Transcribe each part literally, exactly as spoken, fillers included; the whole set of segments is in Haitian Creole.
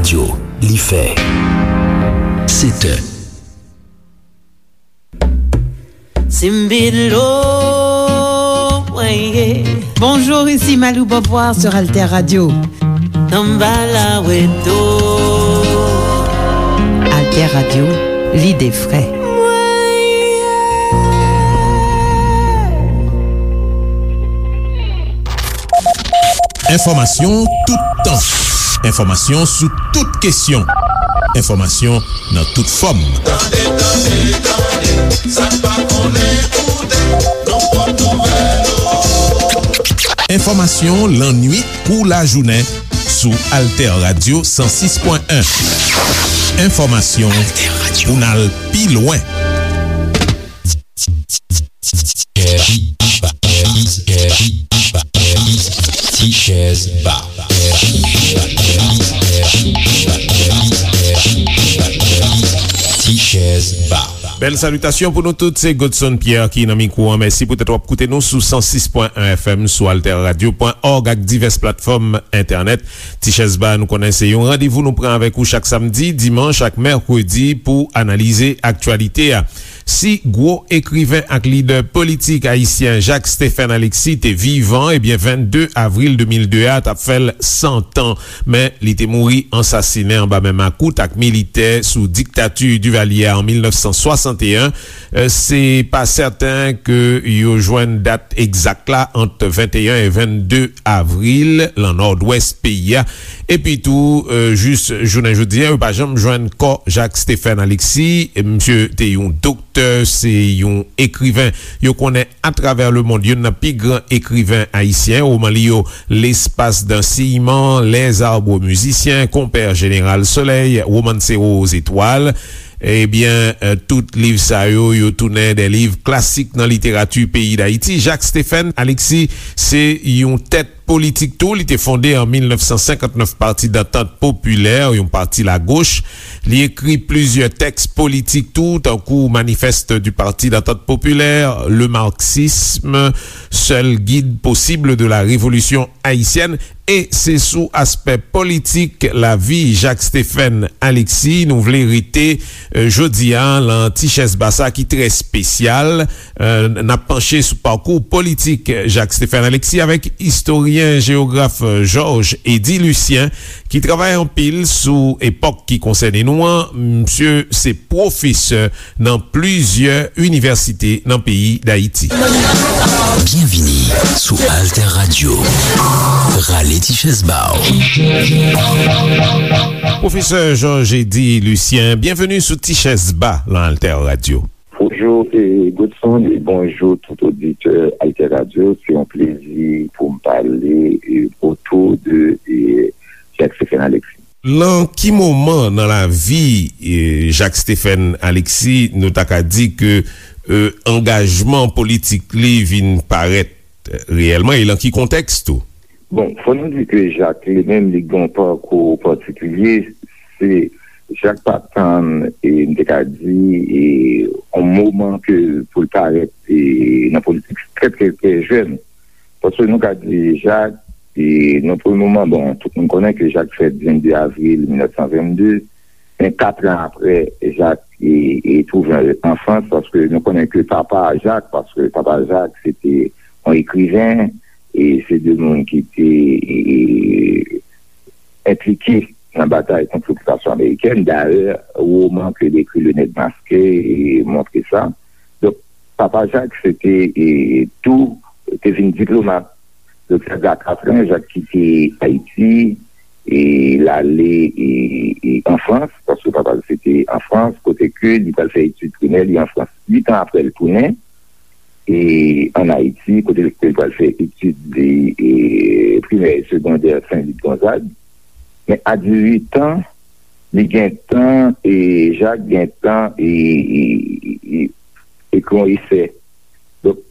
Radyo, li fè sèt è. Simbilo, weye. Bonjour, ici Malou Beauvoir sur Alter Radio. Tambala weto. Alter Radio, l'idée vraie. Enfòmasyon toutan. Enfòmasyon sou tout kesyon. Enfòmasyon nan tout fòm. Tande, tande, tande, sa n pa konnen koute, nou pot nouvèl yo. Enfòmasyon lannwit kou lajounen sou Alter Radio san sis pwen en. Enfòmasyon pou n al pi lwen. Ti chèz ba. Ti chèz ba. Bèl salitasyon pou nou tout, se Godson Pierre ki nan mikwo an. Mèsi poutèt w ap koute nou sou san sis pwen en F M, sou alter radio pwen org ak divès platfòm entènèt. Ti chèz ba, nou konnen se yon randevou nou pran avèk ou chak samdi, dimanch ak mèkredi pou analize aktyalite a. Si gwo ekriven ak lidè politik ayisyen Jacques Stephen Alexis te vivan, ebyen, vennde avril de mil de a t ap fè l san tan, men li te mouri ansasinen anba men makout ak militè sou diktati Duvalier an mil nèf san swasanteyen. Eh, se pa sèten ke yo jwenn dat egzak la ant venteyen e vennde avril nan nòdwès peyi a. Epi tou, eh, jis jounen jodi a, yo pa janm jwenn kò Jacques Stephen Alexis. Misye te yon doktè, se yon ekriven yo konnen atravè lemonn, youn nan pi gran ekriven ayisyen. Woman li yo, L'espace d'un ciment, Les arbres musiciens, Compère Général Soleil, Romancero aux étoiles. Ebyen, eh, tout liv sa yo, yo tounen de liv klasik nan literati peyi Dayiti. Jacques Stephen Alexis se yon tèt politik tou. Li te fonde an mil nèf san senkant nèf Pati Dantant Popilè, yon pati lagoch. Li ekri plizyè tèks politik tou, tankou Manifeste du Parti d'Entente Populaire, Le Marxisme, Seul guide possible de la révolution haïtienne. E se sou aspè politik lavi Jacques Stephen Alexis nou vle rete, eh, jodi a, lan ti chèz ba sa ki trè espesyal. Eh, n ap panche sou pakou politik Jacques Stephen Alexis avèk istoryen, jewograf, eh, Georges Eddy Lucien, ki travay anpil sou epòk ki konsène nou an. Misye se pwofesè nan plizyè inivèsite nan peyi Dayiti. Byenvini sou Alter Radio. Rale ti chèz ba w. Pwofesè Georges Eddy Lucien, byenveni sou Ti Chèz Ba lan Alter Radio. Bonjou, e, Godson, e bonjou tout oditè Alter Radio. Se yon plezi pou m pale, e, otou de, e, Jacques Stephen Alexis. Lan ki moman nan lavi, e, Jacques Stephen Alexis nou ta ka di ke, e, angajman politik li vin parèt reyèlman, e lan ki kontèks tou? Bon, fò nou di ke Jacques li menm, li gen yon pakou patikilye. Se, Jacques pa tann, e, m te ka di, e, yon moman ke pou l parèt, e, nan politik trè, trè, trè jèn. Paske nou ka di Jacques, e, nan premye moman, bon, tout moun konnen ke Jacques fèt vennde avril mil nèf san vennde, men kat an apre, Jacques, e, e, twouve l an Frans, paske nou konnen ke papa Jacques, paske papa Jacques, se te yon ekriven, e se de moun ki te, e, enplike nan batay kont lokipasyon amerikèn. Dayè, woman ke l ekri, Le Nègre Masqué, e, montre sa. Donk, papa Jacques, se te, e, tou, te vin diplomat. Donk, sa fè a katran, Jacques kite Ayiti, e l ale, e, e, an Frans, paske papa l se te an Frans, kote ke li pral fè etid primè li an Frans. Uit an apre, l tounen, e, ann Ayiti, kote l pral fè etid li, e, primè e segondè Sen Lit Gonzag. Men a dizuit an, li gentan, e, Jacques gentan, e, e, e, e, ekri yon esè. Donk,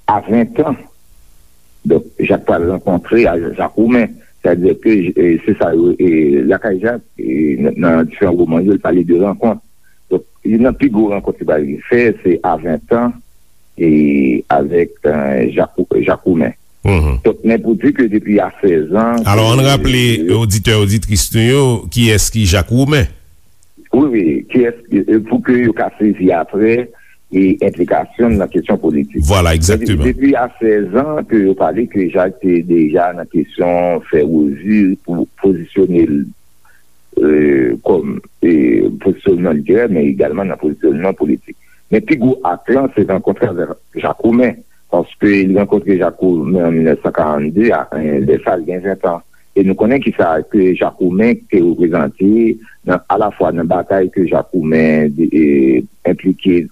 a ven an, donk, Jacques pral rankontre a Jacques Roumain. Sètadi ke, e, se sa yo, e, lakay Jacques, e, nan, nan diferan woman yo, li pale de rankont. Donk, youn nan pi gwo rankont li pral fè, se a ven an, e avèk, e, Jacques, Jacques Roumain. Donk, men pou di ke depi a sèz an... Alò, ann raple oditè, oditris nou yo, kiyès ki Jak Woumen? Wi, wi, kiyès, pou ke yo ka sezi apre e enplikasyon l nan kesyon politik. Vwala, egzakteman. Depi a sèz an ke yo pale ke Jak te deja nan kesyon fè revi pou pozisyone l e, kòm e, pozisyonman literè, men egalman nan pozisyonman politik. Men pi gwo ak lan, se rankontre avèk Jak Woumen, paske li rankontre Jak Woumen an mil nèf san karannde, a, e, lè sa a, li gen ven tan. E nou konnen kisa ke Jak Woumen te reprezante nan, alafwa nan batay ke Jak Woumen e, enplike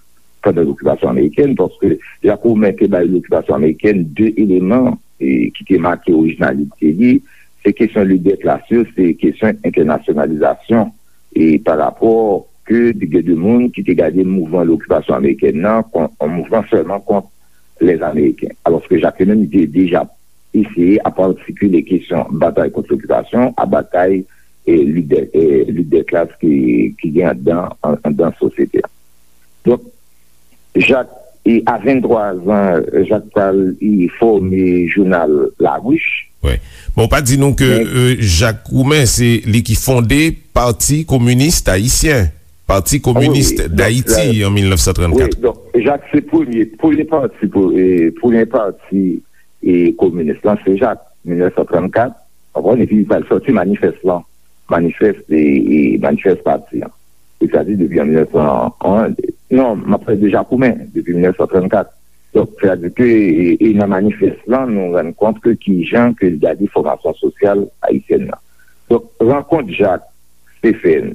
pandan lokipasyon amerikèn, paske Jak Woumen te bay lokipasyon amerikèn de eleman e, ki te make orijinalite li, se kesyon lidè klas yo, se kesyon entènasyonalizasyon e, pa rapò ke te gen de moun ki te gade mouvman lokipasyon amerikèn nan kon yon mouvman sèlman kont lèzameriken. Alòske Jak li menm, li te deja eseye ap atikile kesyon batay kont lokipasyon a batay e, lidè, e, lidè klas ki, ki gen anndan, an- anndan sosyete a. Donk, Jak, e, a venntwa zan, Jak pral e, fòme jounal La Ruche. Wi. Bon, ou pa di nou ke e, Jak Woumen, se li ki fonde Pati Kominis Ayisyen, Pati Kominis Dayiti, an mil nèf san trannkat. Wi, donk, Jak se premye, premye pati, pou- e, premye pati e, kominis lan, se Jak, mil nèf san trannkat, w konprann, epi li pral sòti manifès lan, manifès e, e manifès pati an. Sètadi depi an mil nèf san, non, m ap pale de Jak Woumen, depi mil nèf san trannkat. Donk, sètadi ke, e, e nan manifès lan, nou rann kont ke kijan ke l gade fòmasyon sosyal ayisyèn nan. Donk, rankont Jak Stephen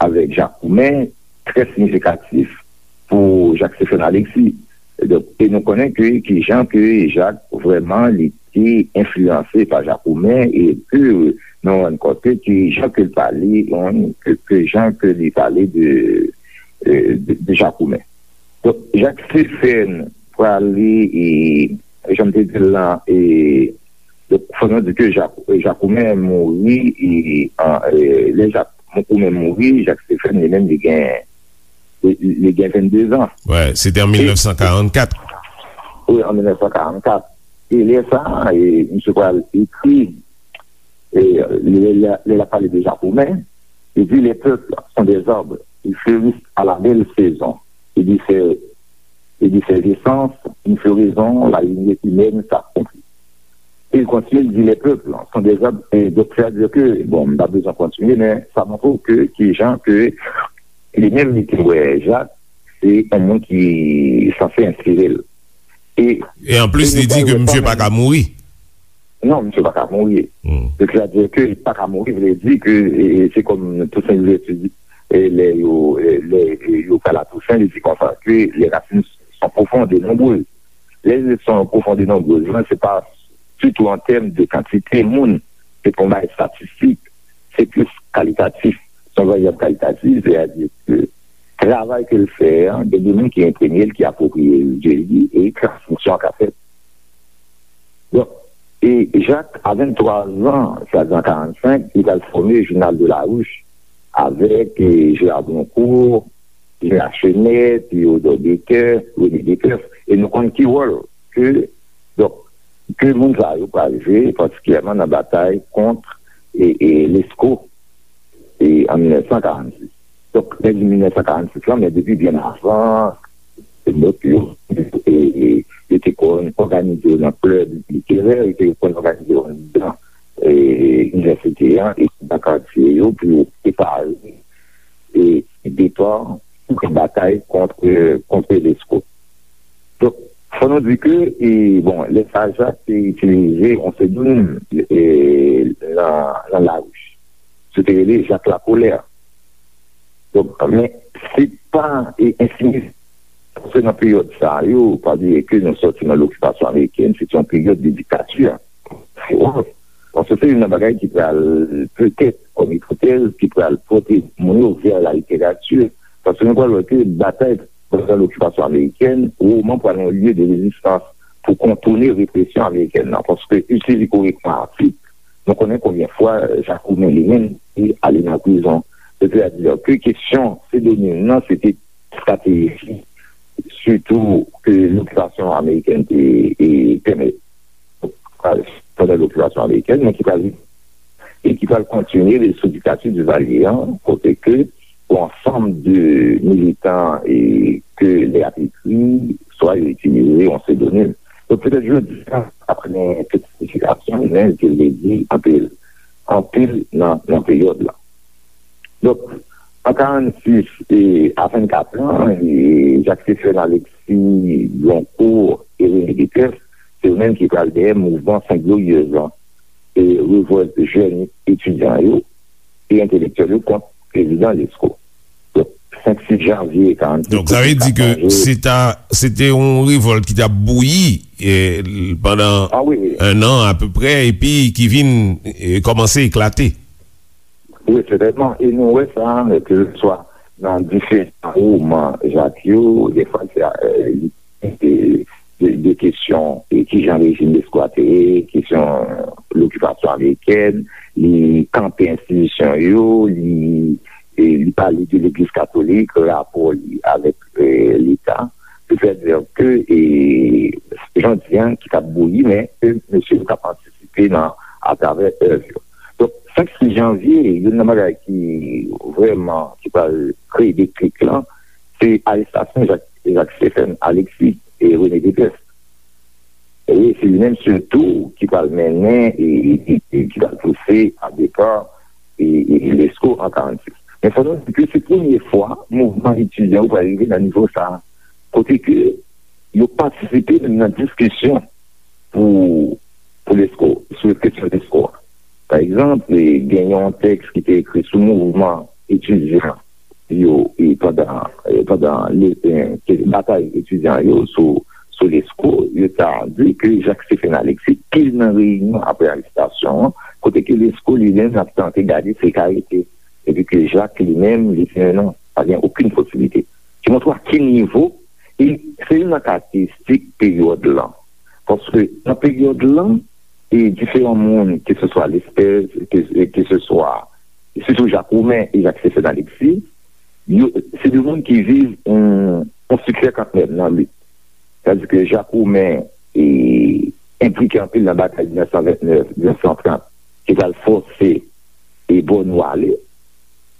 avèk Jak Woumen, trè siyifikatif pou Jak Stephen Alexis. Donk, e nou konnen ke kijan ke Jak vrèman li te enfliyanse pa Jak Woumen e ke nou rann kont ke kijan ke l pale, ke, ke jan ke li pale de, de, de Jak Woumen. Donk, Jak Stephen prale e, jan m te di l lan, e, donk, fò nou di ke Jak, Jak Woumen mouri e, an, e, lè Jak Woumen mouri, Jak Stephen li menm li gen, li, li gen vennde zan. Wè, se te an mil nèf san karannkat. Wi, an mil nèf san karannkat. E lè sa a, e, misye pral ekri, e, lè, lè, lè l ap pale de Jak Woumen, li di, les peuples sont des arbres, ils fleurissent à la belle saison, et de ces, et de ces essences, une floraison, la lignée humaine s'accomplit. E l kontinye, l di, les peuples sont des arbres, e donk, sètadi ke, bon, m pa bezwen kontinye, men sa montre w ke, kijan ke li menm li te wè Jak, se yon moun ki sanse enspire l. E, e anplis, li di ke misye pa ka mouri. Non, misye pa ka mouri. Sètadi ke li pa ka mouri, vle di ke, e, e, se kòm Toussaint Louverture di, e, lè yo, e, lè, e, yo pral a Toussaint, li di konsa ke les racines sont profondes et nombreuses. Les racines sont profondes et nombreuses, se pa sitou an tèm de kantite moun, se pa yon bagay estatistik, se plis kalitatif. Se yon varyab kalitatif, sètadi ke travay ke l fè an, gen de moun ki enprime l, ki apwopriye l de li, e transmisyon an ka fèt. Donk, e Jak, a venntwa zan, sètadi an karannsenk, li pral fòme Journal de la Ruche avèk, e, Gérard Broncourt, Jean Lachenet, Théodore Baker, René Desperces, e nou konn ki wòl ke, donk, ke moun sa yo pral jwe, patikilyèman nan batay kont, e, e, Lescot, e, an mil nèf san karannsis. Donk, lè di mil nèf san karannsis lan, men depi byen avan, se lòt yo, e, e, yo te kon òganize yo nan klèb literè, yo te kon òganize yo anndan, e, inivèsite an, e nan katye yo pou yo prepare e depa pou batay kont, kont Lescot. Donk, fò nou di ke, e, bon, lè sa a, Jak te itilize yon psedonim, e, nan, nan Larouch. Se te rele Jak Lakolè. Donk, men, se pa, e, ensinistre, paske nan peryòd sa yo, pa bliye ke nou sòti nan lokipasyon amerikèn, se te yon peryòd de diktati. Se wòl. Paske se youn nan bagay ki pral, petèt, kòm ipotèz, ki pral pote moun yo vè la literati. Paske nou pral wè ke batay pandan lokipasyon amerikèn, woman pral yon lye de rezistans pou kontounen represyon amerikèn nan. Paske istorik, nou konnen konbyen fwa Jak Woumen li menm te ale nan prizon. Sètadi ke kesyon psedonim nan, se te estrateji, sitou ke lokipasyon amerikèn te, e, pèmèt. pral pandan lokipasyon amerikèn, men ki pral e ki pral kontinye sou diktati Divalye an, kote ke yon ansanm de militan e ke lè ap ekri, swa yo itilize yon psedonim. Donk, petèt jodi a, apre tout siyifikasyon, men ke vle di anpil, anpil nan, nan peryòd la. Donk, an karannsis e a vennkat an, e Jacques Stephen Alexis, Bloncourt e René Dépèsse, se yo menm ki pral dèyè mouvman Sent Gloryèz lan, e revòlt jèn etidyan yo e entelektyèl yo kont prezidan Lesko. Donk, senk sis janvye karannsis, Donk, sa vle di ke se ta, se te yon revòlt ki t ap bouyi, e, pandan Ah wi, wi. en an apeprè, epi ki vin, e, kòmanse eklate. Wi, sètènman. E nou wè sa, ke se swa nan diferan woman Jak yo, defwa se, e, li de, de, de kesyon, e kijan rejim Lesko a te ye, kesyon lokipasyon amerikèn, li kanpe enstitisyon yo, li, e, li pale de legliz katolik, rapò li avèk, e, leta. Se fè di ke, e, jan di an, ki t ap bouyi, men ke mesye yo t ap antisipe nan, atravè èv yo. Donk, senk sis janvye, youn nan bagay ki vrèman, ki pral kreye deklik lan, se arestasyon Jak, Jak Stephen Alexis e René Dépèsse. E se li menm sitou ki pral mennen e, e, e ki pral pouse a depa e, e Lesko an karannsis. Men fò nou di ke se premye fwa mouvman etidyan yo pral rive nan nivo sa a, kote ke yo patisipe menm nan diskisyon pou, pou Lesko, sou kesyon Lesko a. Pa egzanp, e, gen yon tèks ki te ekri sou mouvman etidyan yo, e, pandan, e, pandan le, e, ke batay etidyan yo sou, sou Lesko, yo ta di ke Jak Stephen Alexis, pil nan reyinyon apre arestasyon an, kote ke Lesko li menm ap tante gade si l ka rete, epi ke Jak li menm, li di non, pa gen okenn posiblite. Ki montre w a ki nivo, e se youn nan karakteristik peryòd lan. Paske nan peryòd lan, e diferan moun, ke se swa Lespèz, ke, ke se swa, sitou Jak Roumen e Jak Stephen Alexis, yo, se de moun ki viv yon, yon siksè kantmenm nan lit. Sètadi ke Jak Roumen, e, enplike anpil nan batay mil nèf san vennèf, mil nèf san trant, ki pral fòse e Bònyo ale,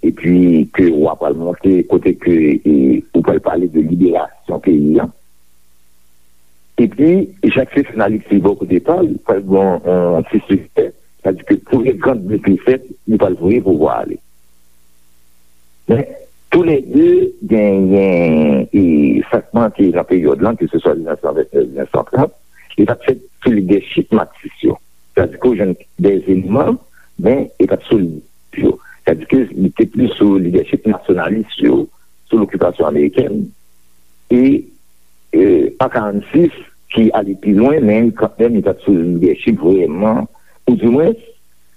epi ke w a pral monte kote ke, e, ou pral pale de liberasyon peyi an. Epi, Jak Stephen Alexis bò kote pa l, pral gen yon, yon ti siksè, sètadi ke premye gran defèt, li pral voye pouvwa a ale. Men, toulède genyen, e, sa k manke nan peryòd lan, ke se swa mil nèf san vennèf, mil nèf san trant, li pa t fèt sou lidèchip Matsis yo. Sètadi ke w jwenn de eleman, men li pa t sou lidèchip yo. Sètadi ke li te plis sou lidèchip nasyonalis yo, sou lokipasyon amerikèn. E, e, an karannsis, ki ale pi lwen, men kantmenm, li pa t sou lidèchip vrèman, ou dimwens,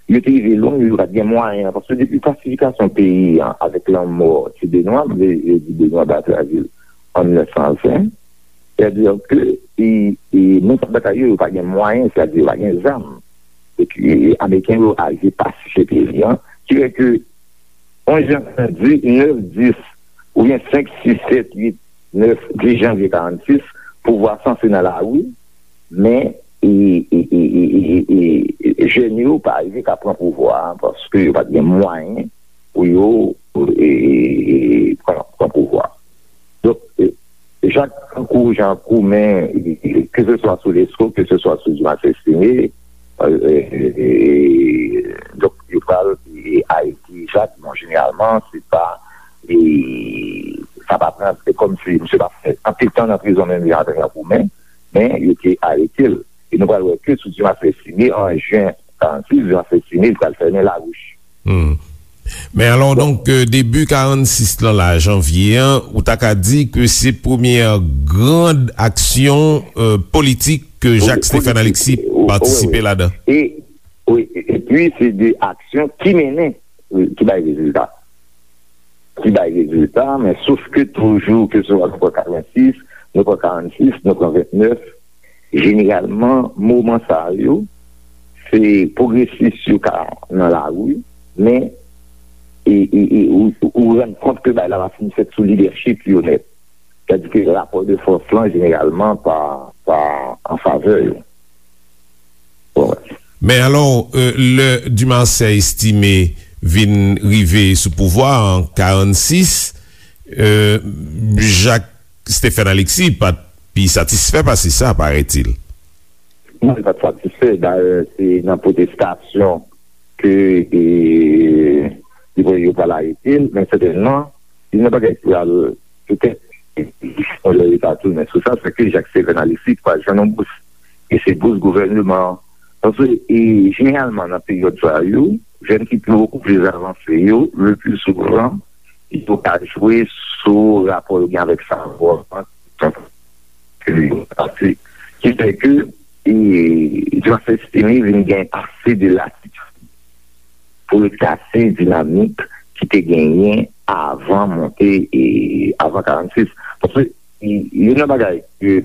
yo te rive lwen, yo pa t gen mwayen, paske depi pasifikasyon peyi an, avèk lanmò Ti Benwa, m vle, vle di Benwa Batravil, an mil nèf san ven, sètadi ke, e, e, moun k ap batay yo, yo pa gen mwayen, sètadi yo pa gen zam. Epi, e, Ameriken yo arive pasifye peyi an, ki fè ke yon jan di, nèf, dis, oubyen senk, sis, sèt, uit, nèf, dis janvye karannsis, pouvwa sanse nan lari, men, e, e, jèn yo pa rive ka pran pouvwa a, paske yo pa t gen mwayen pou yo, e, e, e, pran, pran pouvwa a. Donk, e, Jak tankou Jan Koumen, e, e, ke se swa sou Lesko, ke se swa sou Dimas Estime, e, e, e, donk, yo pral, e, arete Jak, bon, jeneralman, se pa, e, sa pa pran, se kòmsi misye pa fè anpil tan nan prizon menm jan avèk Jan Koumen, men yo te arete l. E nou pral wè ke sou Dimas Estime, an jen karannsis, Dimas Estime, li pral fèmen lawouch. Hmm. Men alò, donk, euh, debi karannsis lan la, janvye an, ou ta ka di ke se premyè grand aksyon, euh, politik ke Wi, Jak Stephen politik. Alexis Wi, wi, patisipe wi. Ladan. E, wi, e, epi se de aksyon ki mennen, wi, ki bay rezilta. Ki bay rezilta, men sof ke toujou, ke se swa nou pran katrevensis, nou pran karannsis, nou pran vennèf, jeneralman, moman sa yo, se pwogresis yo ka nan lari, men, e, e, e, ou, ou rann kont ke bagay la pa fin fèt sou lidèchip yo nèt. Sètadi ke rapò de fòs lan, jeneralman, pa, pa an favè yo. Bon, wè. Men alò, euh, lè Dumarsais Estimé vin rive sou pouvwa an karannsis, euh, Jacques Stephen Alexis pa t pi satisfè pase sa, parètil. Non, li pa t satisfè. Dayè, se nan pwotestasyon ke, e, li voye yo pral arete l, men sètènman, youn nan bagay ki pral petèt yon lè yo ta tounen sou sa, se ke Jacques Stephen Alexis pral jwenn yon bous. E se bous gouvèneman an. Paske, e, jeneralman, nan peryòd sa yo, jèn ki bokou plis avanse yo, le pli souvan, yo ka jwe sou rapò yo gen avèk savwa an, ke yo pase. Ki fè ke, e, Jacques Stephen vin gen ase de latitid pou l kase dinamik ki te genyen avan monte, e, avan karannsis. Paske, e, youn nan bagay ke,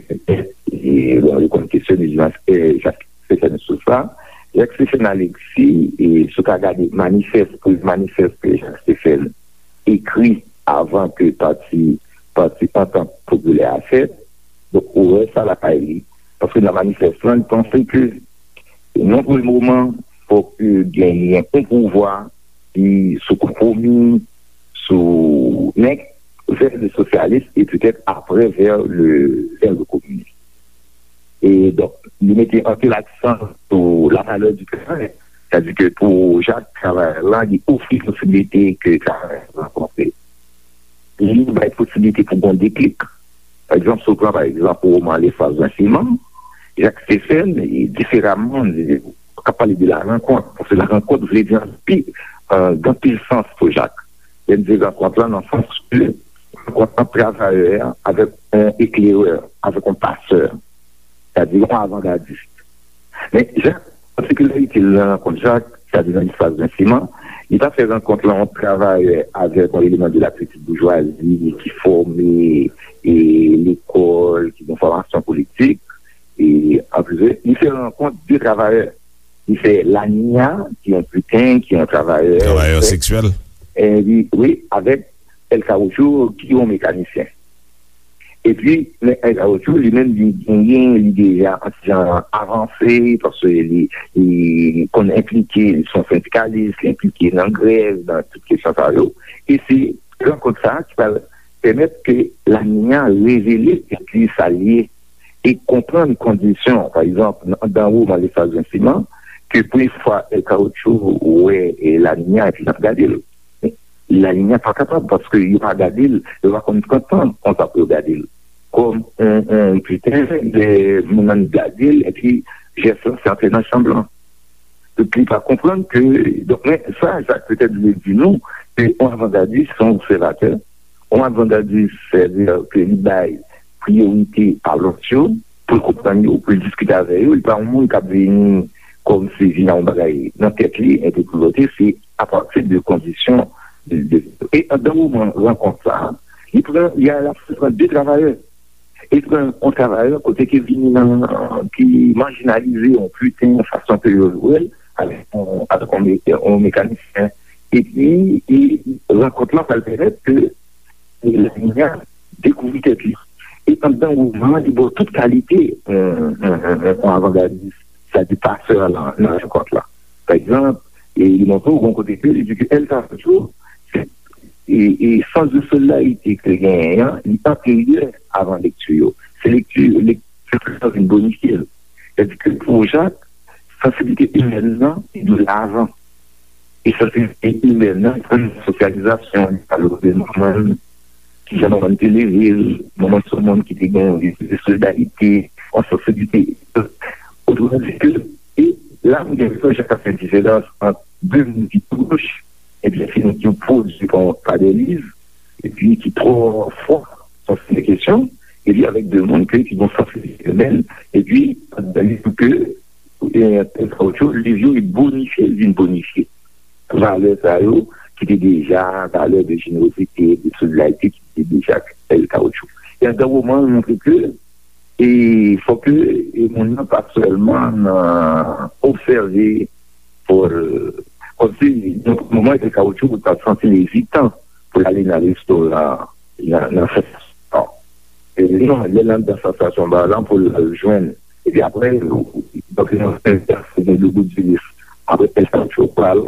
e, bon, yo konn kesyone Jacques Stephen sou sa. Jacques Stephen Alexis, e, si w ka gade manifès, premye manifès ke Jacques Stephen ekri avan ke pati, pati Antant Popilè a fèt, donk, ou wè sa lakay li. Paske nan manifès lan, li panse ke, nan premye moman, fòk genyen yon pouvwa ki sou konpwomi, sou, men vè le sosyalis e petèt apre vè le, vè le kominis. E donk, li mete anpil aksan sou la valeur du travail. Sètadi ke pou Jacques, travayè la, li ofri posiblite ke travayè la rankontre. Li bay posiblite pou gon deklik. Pa egzanp, si w pran, pa egzp, woman Lefraz Vensiman, Jacques Stephen, e diferaman, e, k ap pale de la rankont, paske la rankont vle di anpi, e, gen anpil sans pou Jacques. Lè m di rankont lan, nan sans ke rankont ant travayè a avèk yon eklerè, avèk yon pasè, sètadi yon avangadis. Men Jacques, patikilarite l nan rankont Jacques, sètadi nan Lefraz Vensiman, li pa fè rankont lan yon travayè avèk yon eleman de la petite bourgeoisie ki fòme, e, lekòl, ki gen fòmasyon politik, e, anplis, li fè rankont de travayè. Li fè Laninya, ki yon piten, ki yon travayè. Travayè seksyèl. E, wi, wi, avèk El Caoutchouc, ki yon mekanisyen. Epi, men El Caoutchouc, li menm, li genyen, li deja anti jan avanse, paske li, li konn enplike, li se yon sendikalis, li enplike nan grèv, nan tout kesyon sa yo. E se rankont sa a ki pral pèmèt ke Laninya revele epi sa l ye e konprann kondisyon, pa egzanp, nan, nan woman Lefraz Vensiman, ke premye fwa El Caoutchouc wè, e, Laninya epi l ap gade l. Laninya pa kapab, paske yo pa gade l, yo pa konn pran tan konsa pou yo gade l. Kòm on, on piten, lè moun nan gade l, epi jès lan se antre nan chanm lan. Donk, li pa konprann ke, donk, men sa, Jacques petèt vle di nou, ke on avangadis, se on obsèvatè, on avangadis, sètadi ke li bay priyorite a lòt yo, pou l konprann yo, pou l diskite avè yo. Li pa yon moun k ap vini kòmsi vin ak yon bagay nan tèt li, entèlote, se apati de kondisyon de, de, e anndan woman rankont sa a, li pran, li al ap pran de travayè. E pran yon travayè kote ke vini nan, ki majinalize, yon piten, yon fason ke yo wè l, avèk yon, avèk yon me-, yon mekanisyen. Epi, e rankont lan pral pèmèt ke Laninya dekouvri tèt li. E anndan woman an, li ba w tout kalite, yon, yon, yon, yon avangadis, sètadi pasè lan, nan rankont la. Pa egzanp, e li montre w yon kote ke li di ke El Caoutchouc, se, e, e sans de solidarité ke l genyen an, li anteryè avan lekti yo. Se lekti, lekti sa vin bonifye l. Sètadi ke pou Jacques, sansiblite imèn nan, li dwe la avan. E sansiblite imèn nan, se yon sosyalizasyon, li pale de manman l, kijan manman l te leve l, manman l se yon moun ki te gen yon lespri de solidarite, yon sansiblite. Otreman di ke, e la m gen enpresyon Jacques ap fè diferans ant de moun ki pwoch, ebyen, se moun ki pwodui pa, pa dè liv, epi ki twò fò sou sèten kesyon, epi avèk de moun ke, ki gen yon sansiblite imèn, epi, li di ke, e, El Caoutchouc, liv yo, li bonifye, li vin bonifye valè sa yo, ki te deja, valè de jenerozite, de solidarite, ki te deja El Caoutchouc. E anndan woman an, li montre ke, e fò ke, e moun nan pa sèlman nan obsève, pou l, kòmsi, nan moman El Caoutchouc, ou ta santi l ezitan pou l ale nan restoran, nan, nan sansasyon. E non, lè l anndan sansasyon ba lan pou l al jwenn. Epi apre, Paske nan fè sa, se gen de bout di lis. Apre, èske yo pral,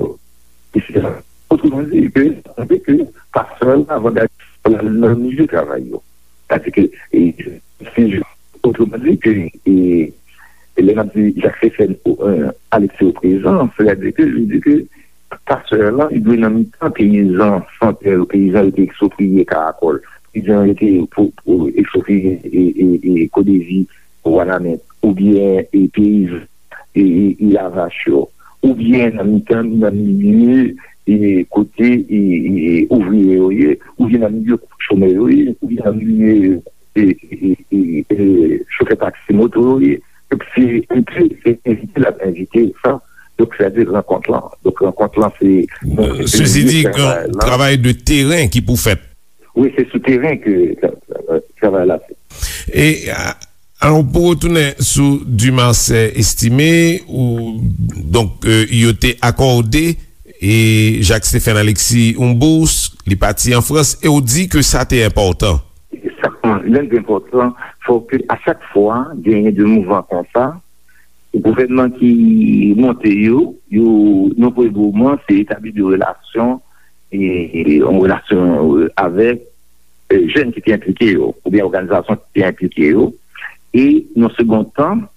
etsetera. Otreman di ke, sanble ke pastè la, avantaj la nan milye travay yo. Sètadi ke, e, si, otreman di ke, e, e lè n ap di Jacques Stéphane, e, Alexis o prezan, sètadi ke, li di ke pastè la, li dwe nan mitan peyizan Santèl, peyizan yo te ekspropriye Karakòl, peyizan yo te po-, po-, ekspropriye, e, e, e, Kodevi, Wanament, oubyen, e, peyizan, e, e, e, Lavach yo, oubyen nan mitan, nan milye, e, kote, e, e, e, ouvriye yo ye, oubyen nan milye chomè yo ye, oubyen nan milye, e, e, e, e, e, chofè taksi moto yo ye. Donk, se envite, se envite l ap envite sa. Donk, sètadi rankont lan. Donk, rankont lan, se, se Sezi di, travay la. Travay de teren ki pou fèt. Wi, se sou teren ke tra-, tra-, travay la fèt. E, a, alò, pou retounen sou Dumarsais Estimé, ou, donk, e, yo te akòde, e, Jacques Stéphane Alexis yon bous, li pati an Frans, e ou di ke sa te enpòtan. Sa, lè l te enpòtan, fò ke a chak fwa genyen de mouvman konsa, gouvènman ki monte yo, yo, nan premye moman, se etabli de relasyon, e, e, yon relasyon, e, avèk, e, jèn ki te enplike yo, oubyen òganizasyon ki te enplike yo. E, nan segond tan,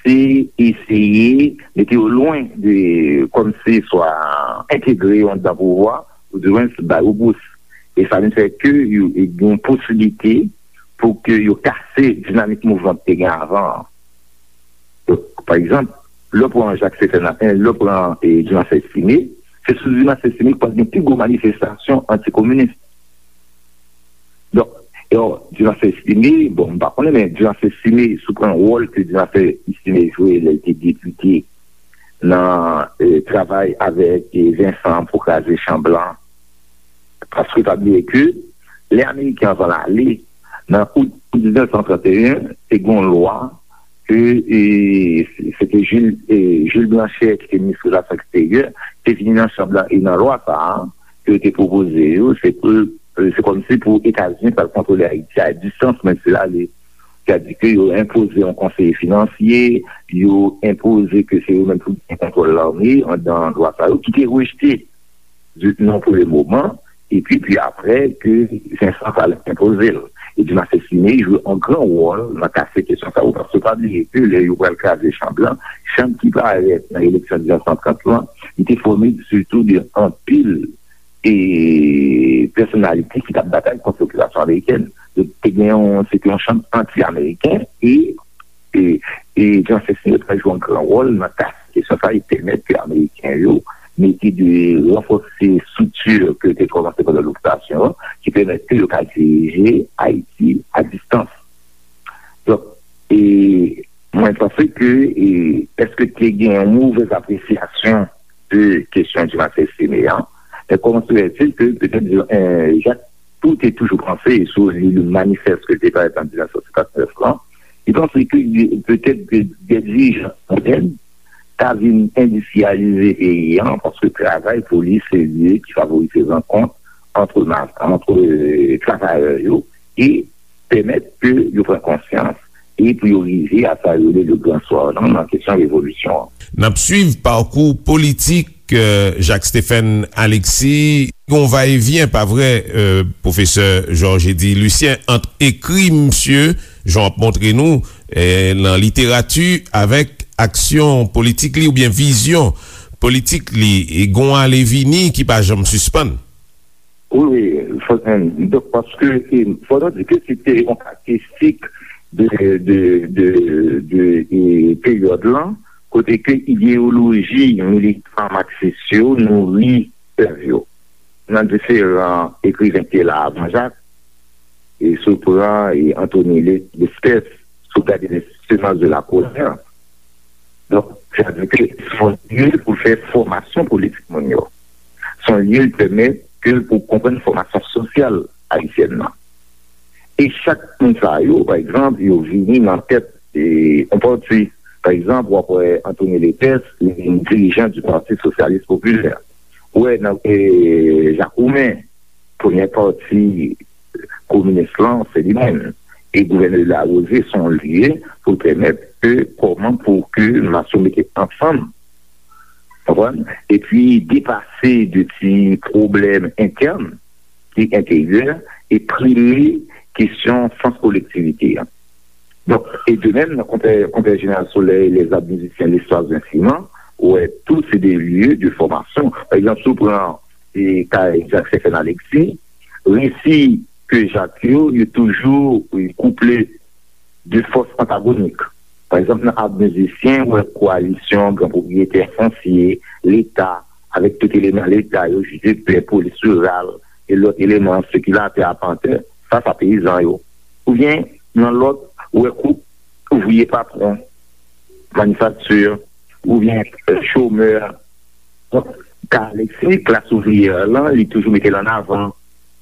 se eseye mete yo lwen de, kòmsi swa entegre yo anndan pouvwa, oudimwens ba yo bous. E sa vin fè ke yo, e gen posiblite pou ke yo kase dinamik mouvman ki te gen avan an. Donk, pa egzanp, lè w pran Jacques Stéphane, e, lè w pran, e, Dumarsais Estimé, se sou Dumarsais Estimé ki pral gen pi gwo manifestasyon antikominis. Donk, e, Dumarsais Estimé, bon, m pa konnen, men Dumarsais Estimé, si w pran wòl ke Dumarsais Estimé jwe lè l te depite nan, e, travay avèk, e, Vincent pou kraze Chan Blan, paske pa bliye ke lè Ameriken an pral ale, nan out diznèf san trannteyen, te gen yon lwa ke, e, se te Jules, e, Jules Blanchet, ki te minis relasyon eksteryè, te vini nan Chan Blan, e nan lwa sa a, ke yo te pwopoze yo, se pou, e, se kòmsi pou Etazini pral kontwole Ayiti a distans, menm si l ale. Sètadi ke yo enpoze yon konseye finansye, yo enpoze ke se yo menm pou gen kontwòl lame anndan lwa sa yo, ki te rejte di, nan premye moman, epi, pi apre, ke Vincent pral enpoze l. E Dumarsais Estimé jwe yon gran wòl nan kase kesyon sa yo, paske pa bliye ke lè yo pral kraze Chan Blan, Chan ki parèt nan eleksyon diznèf san trant lan, li te fòme sitou de anpil, e, pèsonalite ki t ap batay kont lokipasyon amerikèn. Donk, te gen yon, se te yon Chan anti-ameriken, e e, e Dumarsais Estimé pral jwe yon gran wòl nan kase kesyon sa, e pèmèt ke Ameriken yo mete de ranfòse estrikti ke yo te kòmanse pandan lokipasyon an, ki pèmèt ke yo ka dirije Ayiti a distans. Donk, e, mwen panse ke, e, èske te gen yon movèz apresyasyon de kesyon Dumarsais Estimé an, men kòman se fè-t-il ke petèt, e, Jacques tou te toujou panse, e si w li le manifès ke l te parèt an diznèf san senkannnèf lan, li panse ke petèt de, de dirijan modèn ta vin endistriyalize peyi an, paske travay pou li se lye ki favorize rankont antre ma-, antre, e, travayè yo e pèmèt ke yo pran konsyans e pou yo rive a sa yo rele le grand soir lan nan kesyon revolisyon an. N ap swiv pakou politik, e, Jacques Stéphane Alexis. Gon va e vyen, pa vre, e, pwofesè Georges Eddy Lucien, ant ekri misye, jan w ap montre nou, e, nan literati, avèk aksyon politik li oubyen vizyon politik li. E gon ale vini ki pa janm sispann. Wi, wi, fò, donk, paske, e, fò nou di ke se te yon karakteristik de, de, de, de, e, peryòd lan, kote ke ideyoloji militan maksis yo nouri pèv yo. Nan diferan ekriven ki te la avan Jacques, e si w pran, e, Anthony Le-, Lespès, si w gade Les Semences de la Colère, donk, sa vle di ke se yon lye pou fè fòmasyon politik moun yo. Se yon lye ki pèmèt ke pou konprann fòmasyon sosyal ayisyèn nan. E chak moun sa yo, pa egzanp, yo vini nan tèt, e, yon pati. Pa egzanp, w ap wè Anthony Lespès, li vin dirijan du Parti Socialiste Populaire. Ou wè nan, e, Jacques Roumain, premye pati kominis lan, se li menm. E gouvènè Larose, se yon lye pou pèmèt ke kòman pou ke mas yo mete ansanm, konprann? Epi depase de ti pwoblèm entèn ki enteryè e prime kesyon sans kolektivite a. Donk, e de menm, nan Konpè, Konpè Jeneral Solèy, Lèzab Mizisyen, Lestwas Vensiman, ou wè, tou se de lye de fòmasyon. Pa egzanp, si w pran e, kay Jak Stephen Alexis, resi ke Jak yo, yo toujou, e, kouple de fòs antagonik. Pa egzanp, nan Ab Mizisyen, ou wè koalisyon gran pwopriyetè fonsye, Leta, avèk tout eleman Leta yo, jidepè, polis riral, e lòt eleman, sekilatè, apantè, sa, sa peyizan yo. Oubyen, nan lòt, ou wè koup ouvriye patwon, manifakti, oubyen, e, chomè. Donk, ka Alexis, klas ouvriyè lan, li toujou mete l an avan.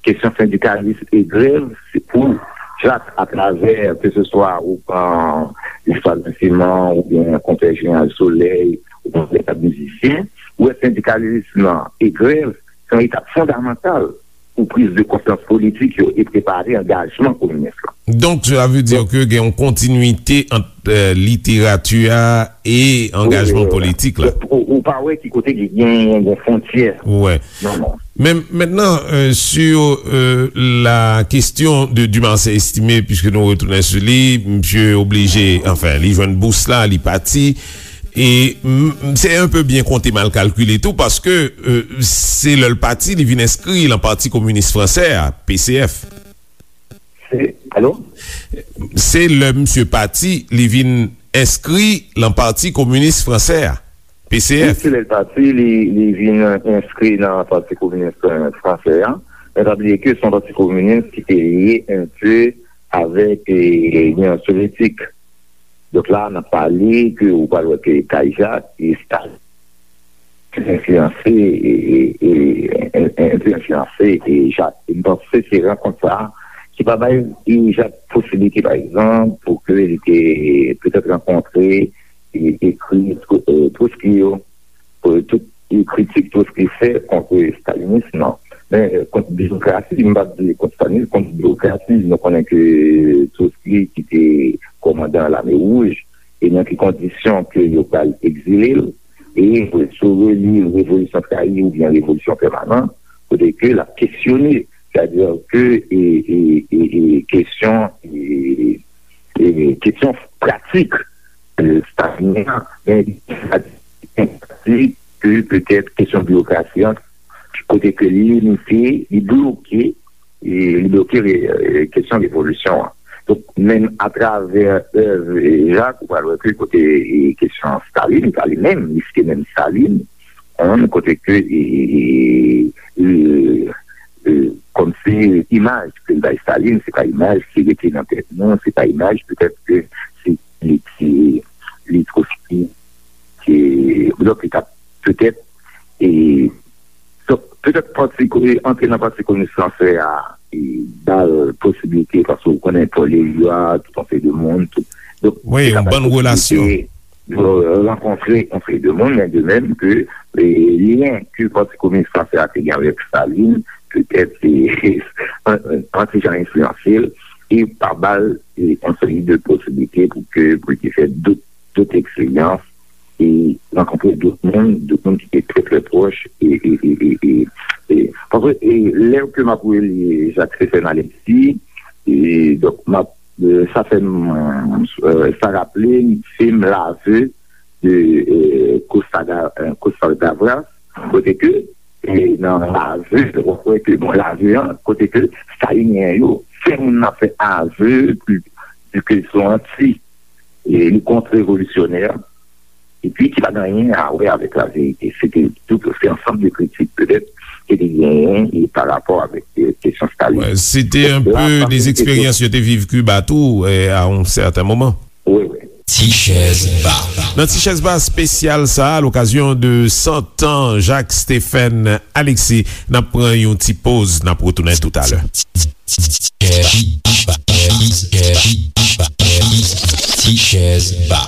Kesyon sendikalis e grèv, se pou Jak, atravè, ke se swa ou pran Lestwas Vensiman, oubyen Konpè Jeneral Solèy, ou pran Lestwas Mizisyen, ou wè sendikalism lan e grèv, se yon etap fondamantal pou priz de konsyans politik yo e prepare angajman kominis lan. Donk, cela veut dire que gen yon kontinwite ant, euh, literati a e angajman politik la. Ou, ou pa wè ki kote ki gen yon fwontyè. Ouais. Non, non. Men mentnan, euh, sur, euh, la question de Dumarsais Estimé, puisque nou retounen sou li, misye oblije, anfen, li jwenn bous la, li pati. E m, m, se un peu bien konte, mal kalkile tou, paske, euh, se lè l pati, li vin enskri lan Pati Kominis Fransè a, P C F. Se, alo? Se lè misye pati, li vin enskri lan Pati Kominis Fransè a, P C F. Wi, se lè l pati, li, li vin enskri nan Pati Kominis, euh, Fransè a. Men pa bliye ke se yon pati kominis ki te lye un peu avèk, eh, Linyon Sovyetik. Donk la, n ap pale ke ou pral wè ke Kay Jak e Stalin enfliyanse, e, e, e, e, enfliyanse, e, Jak. E m panse se rankont sa a ki pa bay, e, Jak posiblite, pa egzanp, pou ke li te petèt rankontre, e, ekri, e, Trotsky yo, pou tout, e, kritik Trotsky fè kont stalinis, non. Men, e, kont birokrasi, m p ap di kont stalinis, kont birokrasi, nou konnen ke Trotsky ki te kòmandan Lame Wouj, e nan ki kondisyon ke yo pral egzile l, e si w reli Revolisyon Trayi oubyen Revolisyon Pèmanan, kote ke l ap kesyone, sètadi ke, e, e, e, e, kesyon, e, e, kesyon pratik, e, stalinyen an, men pratik ke petèt kesyon biwokrasi an, kote ke li limite, li bloke, e, li bloke re-, e, kesyon revolisyon an. Donk, menm atravè èv, e, Jak, ou pral wè ke kote, e, kesyon Stalin, pa li menm, li site menm Stalin, hein, kote ke, e, e, e, e, e, kòmsi imaj ke l bay Stalin, se pa imaj ki rete nan tèt nou, se pa imaj petèt ke se li ki, li Trotsky, ke, donk, li t ap petèt, e, donk, petèt pati ko-, e, antre nan Pati Kominis Fransè a, e, ba l posiblite, paske ou konnen Paul Éluard, tout yon seri de moun, tout. Donk, wi, se yon bòn relasyon. Yo rankontre yon seri de moun, men de menm ke, e, lyen ke Pati Kominis Fransè a te gen avèk Stalin, petèt se an ti jan enfliyanse l, e pa ba l, e, yon seri de posiblite pou ke, pou l te fè dòt, dòt eksperyans, e rankontre dòt moun, dòt moun ki te trè, trè pwòch, e, e, e, e, e, e, paske, e, lè ke m ap reli Jak Stephen Alexis, e, donk, m ap, e, sa fè m, e, sa raple m fim L'aveu de, e, Costa Ga-, e, Costa Gavras, kote ke, e, nan L'aveu, w ap wè ke, bon, L'aveu an, kote ke Stalinyen yo fè moun nan fè aveu, ke, ke se yon anti, e, li kont revolisyonè, epi ki pa gen anyen a wè avèk laverite. Se te tout, se ansanm de kritik, petèt, ke te genyen, e, pa rapò avèk, e, kesyon Stalin. Wè, se te un peu des expériences yo te viv Kiba tou, e, à un certain moment. Wi, wi. Ti Chèz Ba. Nan Ti Chèz Ba espesyal sa a, à l'occasion de cent ans Jacques Stephen Alexis, n ap pran yon ti poz, n ap retounen toutalè. Ti Chèz Ba.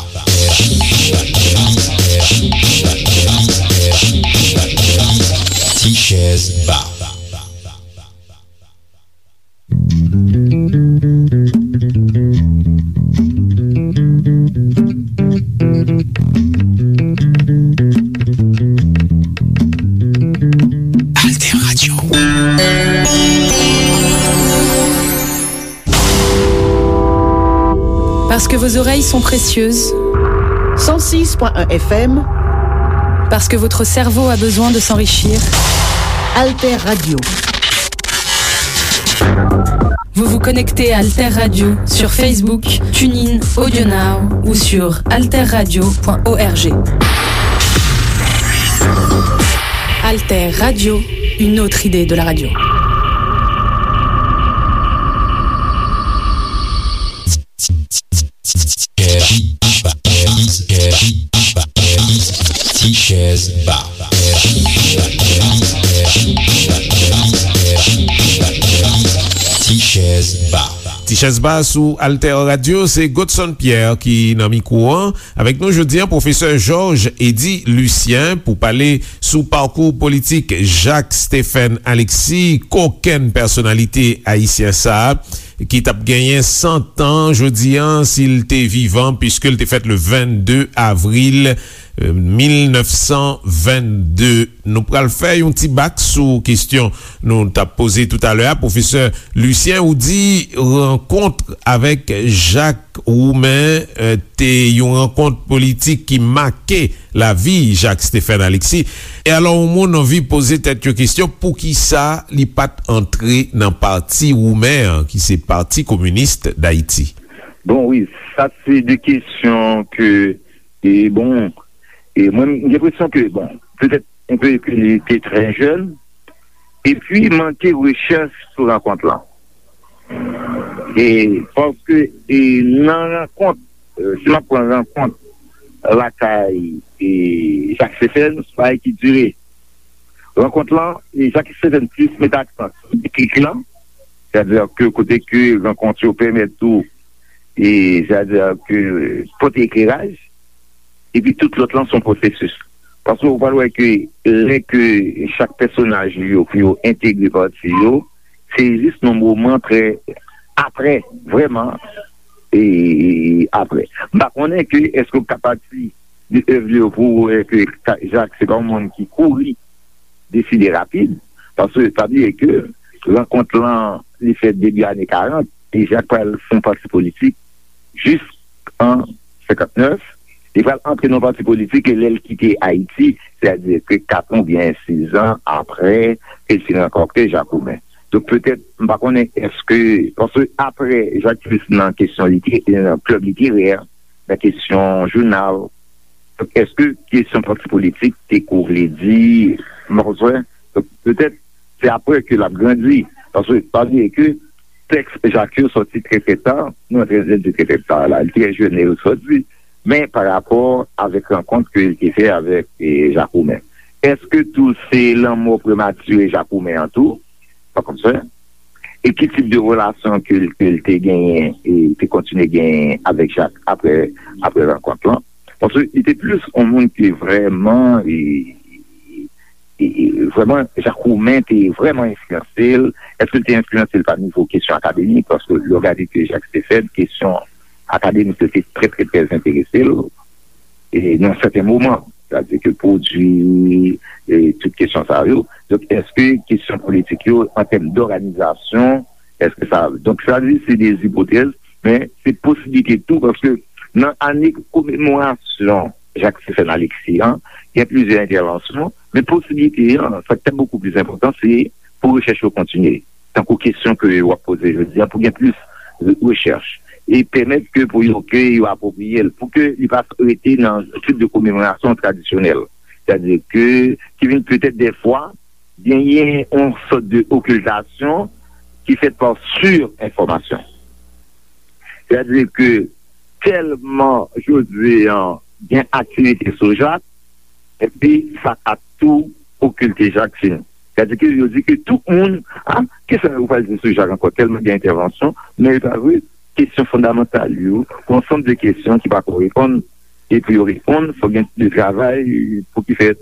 Ti Chèz Ba. Que vos oreilles sont précieuses. Cent six point un F M. Parce que votre cerveau a besoin de s'enrichir. Alter Radio. Vous vous connectez à Alter Radio sur Facebook, TuneIn, AudioNow ou sur alterradio point org. Alter Radio, une autre idée de la radio. Ti chèz ba. Ti chèz ba. Ti chèz ba sou Alter Radio, se Godson Pierre ki nan mikwo an. Avèk nou jodi an, pwofesè Georges Eddy Lucien pou pale sou pakou politik Jacques Stephen Alexis, kokenn pèsonalite ayisyen sa a, ki t ap genyen san tan jodi an si l te vivan, piske l te fèt le vennde avril, euh, mil nèf san vennde. Nou pral fè yon ti bak sou kesyon nou t ap poze toutalè a. Pwofesè Lucien, ou di rankont avèk Jacques Roumain, euh, te yon rankont politik ki make lavi Jacques Stephen Alexis. E alò, yon moun anvi poze tèt yo kesyon, poukisa li pa t antre nan pati Roumen an, ki se Pati Kominis Dayiti? Bon, wi, sa se de kesyon ke, e bon, e mwen, m gen enpresyon ke, bon, petèt, enpe ke li te trè jèn, epi manke rechèch sou rankont lan. E paske, e nan rankont, e, si m ap pran rankont lakay, e, Jacques Stephen, se yon bagay ki dire. Rankont lan, e, Jacques Stephen plis mete aksan sou deklik lan, sètadi ke kote ke rankont yo pèmèt tou, e, sètadi ke pote ekleraj, epi tout lòt lan se yon pwosesis. Paske ou pral wè ke lè ke chak pèsonaj yo pou yo entegre pati yo, se jis nan moman trè apre, vrèman, e apre. M pa konnen ke èske w ka pati de èv yo pou w wè ke Ka-, Jacques se pa yon moun ki kouri deside rapid, paske pa bliye ke rankont lan, li fèt debi ane karant, e Jacques pral fè yon pati politik jis an senkantnèf, li pral antre nan yon pati politik e lè l kite Ayiti, sètadi ke kat an oubyen sis an apre ke l fin rankante Jacques Roumain. Donk, petèt, m pa konnen èske, paske apre Jacques Stephen nan kesyon lite-, nan klèb literè, nan kesyon jounal, donk, èske kesyon pati politik te kou vle di, m pa konn sa, donk, petèt, se apre ke l ap grandi. Paske, pa bliye ke tèks Jacques yo sòti trè, trè ta, nou antre di trè, trè ta la, li trè jèn lè yo sòti, men pa rapò avèk rankont ke l te fè avèk, e, Jacques Roumain. Èske tou se lanmò prematire Jacques Roumain an tou? Pa konn sa. E ki tip de relasyon ke l, ke l te genyen, e te kontinye genyen avèk Jacques apre, apre rankont lan? Paske li te plis yon moun ki vrèman, e, e, e, vrèman, Jacques Roumain te vrèman enfliyanse l. Èske l te enfliyanse l pa nivo kesyon akademik? Paske lè w gade ke Jacques Stephen, kesyon akademik yo te trè, trè, trè enterese l, e nan sèten moman, sètadi ke pwodui, e tout kesyon sa yo. Donk, èske kesyon politik yo, an tèm dòganizasyon, èske sa, donk, sa di se de ipotèz, men se posiblite tou, paske nan ane komemorasyon Jacques Stephen Alexis an, gen plizyè entèvansyon, men posiblite an, sa ki te bokou plis enpòtan, se pou rechèch yo kontinye. Tankou kesyon ke w ap poze jodi a, pou gen plis re-, rechèch. E pèmèt ke pou yo, ke yo apwopriye l, pou ke li pa rete nan tip de komemorasyon tradisyonèl. Sètadi ke, ki vin petèt dèfwa, genyen yon sòt de okiltasyon ki fèt pa sirenfòmasyon. Sètadi ke tèlman jodi an gen aktivite sou Jacques, epi sa ka tou okilte Jacques fini. Sètadi ke yo di ke tout moun, a, kisa yo pral di sou Jacques ankò, tèlman gen entèvansyon, men e pa vre, kesyon fondamantal yo, yon ansanm de kesyon ki pa ko reponn, e pou yo reponn, fòk gen de travay pou ki fèt.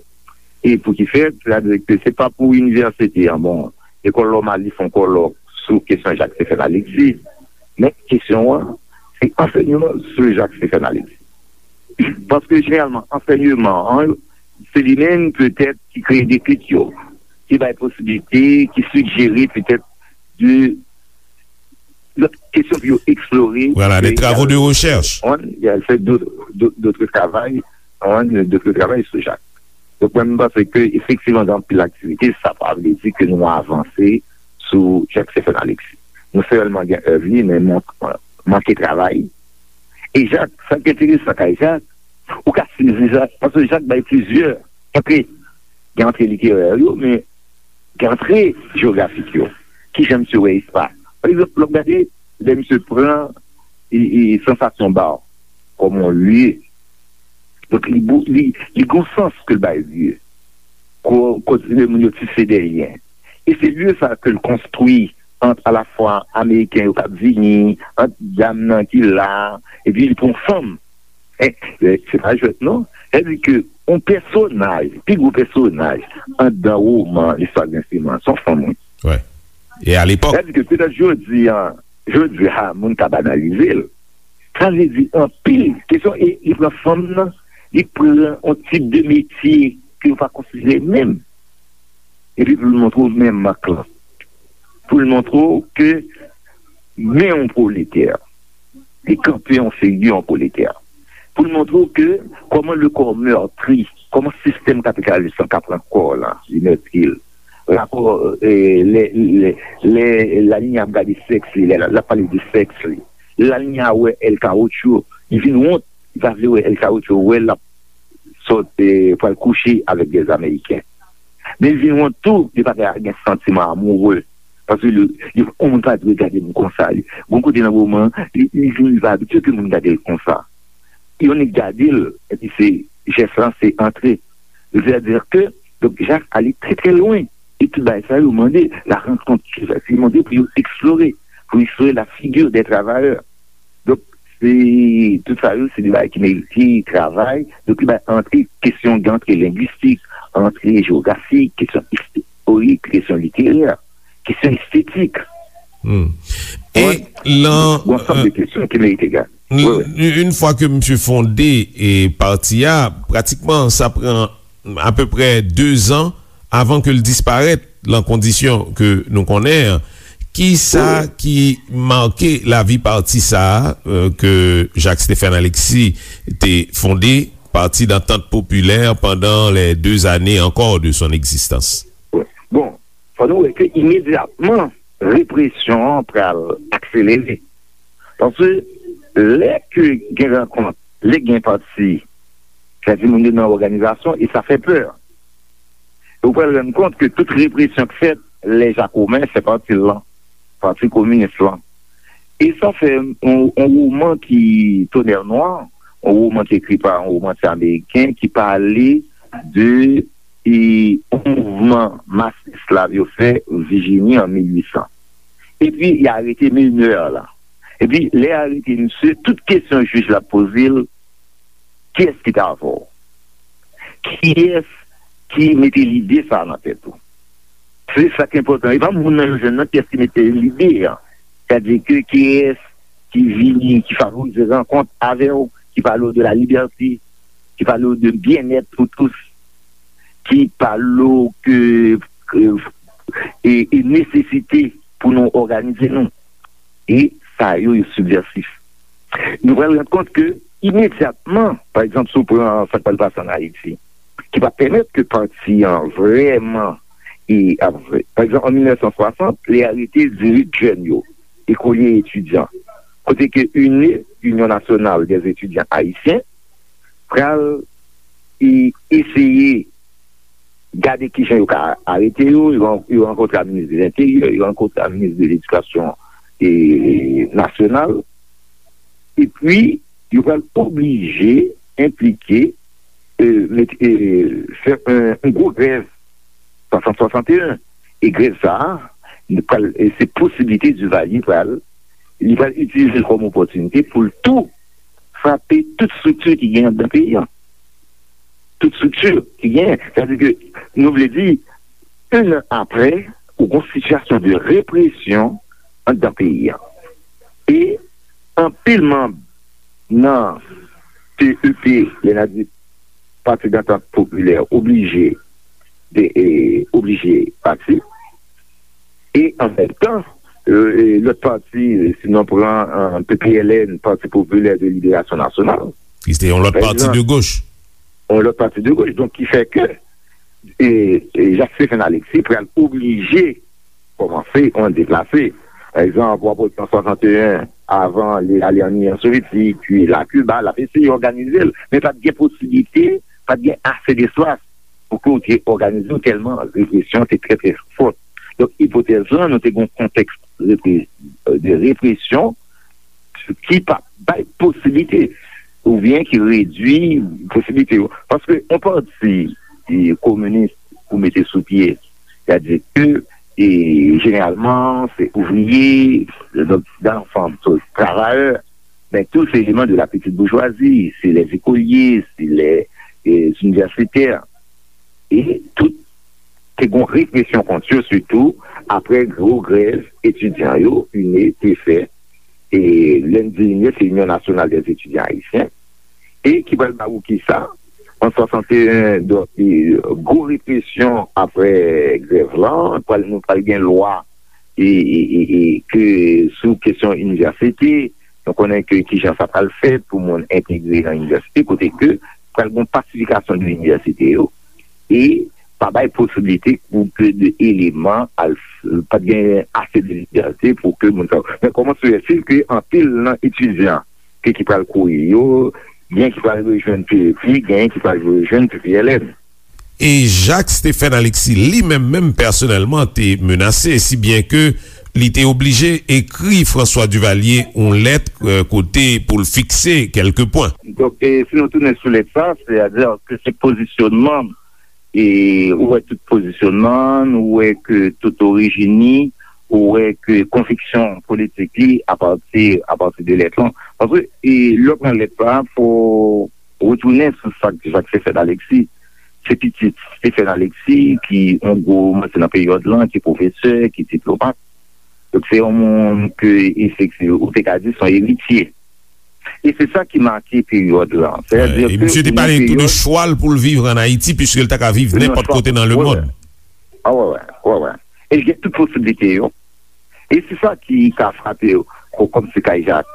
E pou ki fèt, sètadi ke se pa pou inivèsite an, bon, lekòl nòmal, li fè yon kòlòk sou kesyon Jacques Stephen Alexis. Men kesyon an, se ansèyman sou Jacques Stephen Alexis. Paske jeneralman, ansèyman an, se li menm petèt ki kreye deklik yo, ki bay posiblite, ki sijere petèt de lòt kesyon pou yo eksplore. Voilà, des travaux de recherche. On, y a fait d'autres, d'autres, d'autres travail, on, d'autres travail sou Jak. Donk, mwen, m panse ke efektivman, gen anpil aktivite, sa pa vle di ke nou avanse sou Jak Stephen Alexis. Nou sèlman gen èv li, men man-, manke travay. E Jak, sa k enteresan kay Jak, ou ka sezi Jak, paske Jak bay plizyè antre. Gen antre literè yo, men gen antre jewografik yo. Kijan misye wè espas? Pa egzanp, lè w gade, lè misye pran e, e, Sansasyon Ba kòm yon lye. Donk, li, bou- li, li gon sans ke l bay lye. Ko- Kote moun yo tise dèyè. E se lye sa ke l konstwi ant alafwa Ameriken yo k ap vini, ant dam nan ki la, epi li pran fanm. E, e, se pa jwèt non. Sa di ke yon pèsonaj, pi gwo pèsonaj anndan woman Listwa Grenseman, se yon fanm, wi. Wè. E alepòk. Sa di ke petèt jodi a, jodi a, moun ka banalize l. Sa vle di anpil kesyon, e li pran fanm nan, li pran yon tip de metye ke yo pa konsidere menm. Epi pou l montre w men mak lan. Pou l montre w ke men yon pwoletè. Li kanpe yon figi yon pwoletè. Pou l montre w ke kòman le corps meurtri, kòman sistèm kapitalis lan ka pran kò w lan, li mètri l. Rapò, e, lè, lè, lè Lalinya ap gade sèks li, lè l ap pale de sèks li. Lè Lalinya wè El Caocho, li vin wont, li pa vle wè El Caocho, wè l ap sòt, e, pral kouche avèk dè Ameriken. Men li vin wont tou, li pa ka gen santiman amoure. Paske li, li, yon moun pa dwe gade m konsa. Li, gon kote nan moman, li, li vin, li pa abitye ke moun gade l konsa. Yon nèg gade l, epi se, jès lan se antre. Sètadi ke, donk, Jak ale trè, trè lwen. E tout bagay sa yo mande la rankont, se mande pou yo eksplore, pou eksplore la figure des travailleurs. Donk, se, tout sa yo, se de bagay ki merite travay. Donk, li bay antre kesyon, gen antre lengwistik, antre jewografik, kesyon istorik, kesyon literè, kesyon estetik. Hmm. E lan, yon ansanm de kesyon ki merite gade. Wi, wi. Yon fwa ke misye fonde e pati a, pratikman, sa pran apeprè de zan avan ke l disparèt lan kondisyon ke nou konnen an. Ki sa ki make lavi pati sa a, euh, ke Jacques Stephen Alexis te fonde, Parti d'Entente Populaire, pendant les deux années encore de son existence? Bon, fò nou wè ke imedyatman, represyon an pral akselere. Paske lè ke gen rankont, lè gen pati, sa di moun yo nan òganizasyon, e sa fè pè. E ou pral rann kont ke tout represyon k fèt, lè Jakoben fè pati l lan, Pati Kominis lan. E sa fè yon, yon woman ki Tonnerre Noire, yon woman ki ekri pa yon womantye ameriken ki pale de e, yon mouvman mas esklav yo fè Vijini an mil uit san. Epi, y arete menè la. Epi, lè y arete misye, tout kesyon jij la poze l, kiyès ki t avè w? Kiyès ki mete lide sa a nan tèt ou? Se sa k enpòtan. E pa moun nan yo jwenn nan, kiyès ki mete lide a? Sètadi ke kiyès ki vini, ki favorize rankont avè w, ki pale w de la liberté, ki pale w de byennèt pou tous, ki pale w ke, ke, e, e nesesite pou nou òganize nou. E sa yo, yo sibvèsif. Nou pral rann kont ke imedyatman, pa egzanp, si w pran sa k pral pase ann Ayiti, ki pa pèmèt ke pati an vrèman e ap, pa egzanp, an mil nèf san swasant, li arete dizuit jèn yo, ekolye etidyan, kote ke UNE, Union Nationale des Étudiants Haïtiens, pral e eseye gade kijan yo ka arete yo, yo, yo rankontre ak minis de Lenteryè, yo rankontre ak minis de Ledikasyon e, nasyonal, epi yo pral oblije enplike, e, met, e, fè yon, yon gwo grèv swasant swasanteyen. E grèv sa a, li pral, e se posiblite Duvalier pral, li pral itilize l kòm opòtinite pou l tou frape tout estrikti ki gen anndan peyi a. Tout estrikti ki gen. Sètadi ke nou vle di, en an apre, ou gon sitiyasyon de represyon anndan peyi a. E anpil manm nan P E P, lè n ap di Parti d'Entente Populaire, oblije de, e, oblije pati. E an menm tan, e, e, lòt pati, si nou pran, e, P P L N, Parti Popilè de Liberasyon Nasyonal, ki se te yon lòt pati de goch. Yon lòt pati de goch. Donk, ki fè ke, e, e, Jacques Stephen Alexis pral oblije kòmanse yon deplase. Pa egzanp, w ap wè an swasanteyen, avan li ale an Inyon Sovyetik, li al Kiba, l ap eseye òganize l, men pa t gen posiblite, pa t gen ase despas pou ke w te òganize w tèlman represyon te trè, trè fòt. Donk, ipotèz lan, nou te gen yon kontèks repre-, de represyon ki pa bay posiblite, oubyen ki redui posiblite yo. Paske yon pati, e, kominis ou mete sou pye, sètadi ke, e, jeneralman, se ouvriye, donk, dan fanm, se travayè, men tou se eleman de la petite bourgeoisie, se lè zekolye, se lè, e, inivèsitè. E tout te gon represyon kont yo, sitou apre gwo grèv etidyan yo, ine, te fè. E lè n di ine, se Union Nationale des Étudiants Haïtiens. E ki pral ba ou kisa? An swasanteyen, donk, e, gwo represyon apre grèv lan, pral, nou pral gen lwa e, e, e, e, ke sou kesyon inivèsite, nou konnen ke kijan sa pral fèt pou moun entegre nan inivèsite, kote ke pral gen pasifikasyon de inivèsite yo, e pa bay posiblite pou ke de eleman al, pa t gen ase de libète pou ke moun sa yo. Men kòman se fè ke anpil nan etidyan ke ki pral kouri yo, gen ki pral rejwenn P F I, gen ki pral rejwenn P P L N. E Jacques Stephen Alexis li menm, menm pèsonèlman, te menase, si byen ke li te oblije ekri François Duvalier yon lèt, e, kote pou l fikse kèlke pwen. Donk, e, si nou tounen sou lèt sa, sètadi ke se pozisyonman, e, ou wè tout pozisyonman, ou wè ke tout orijin li, ou wè ke konviksyon politik li apati, apati de lèt lan. Paske, e, lè w pran lèt la, fò retounen sou sa k Jacques Stephen Alexis. Se pitit Stephen Alexis ki yon gwo manti nan peryòd lan, ki pwofesè, ki diplomat. Donk, se yon moun ke, efektivman, ou te ka di se yon eritye. E se sa ki make peryòd lan. Sètadi ke misye te pale tou de chwa l pou l viv ann Ayiti, piske l ta ka viv nenpòt kote nan lemonn. Wi, wi. A, wi, wi, wi, wi. E l gen tout posiblite yo. E se sa ki ka frape w kò kòm se kay Jak.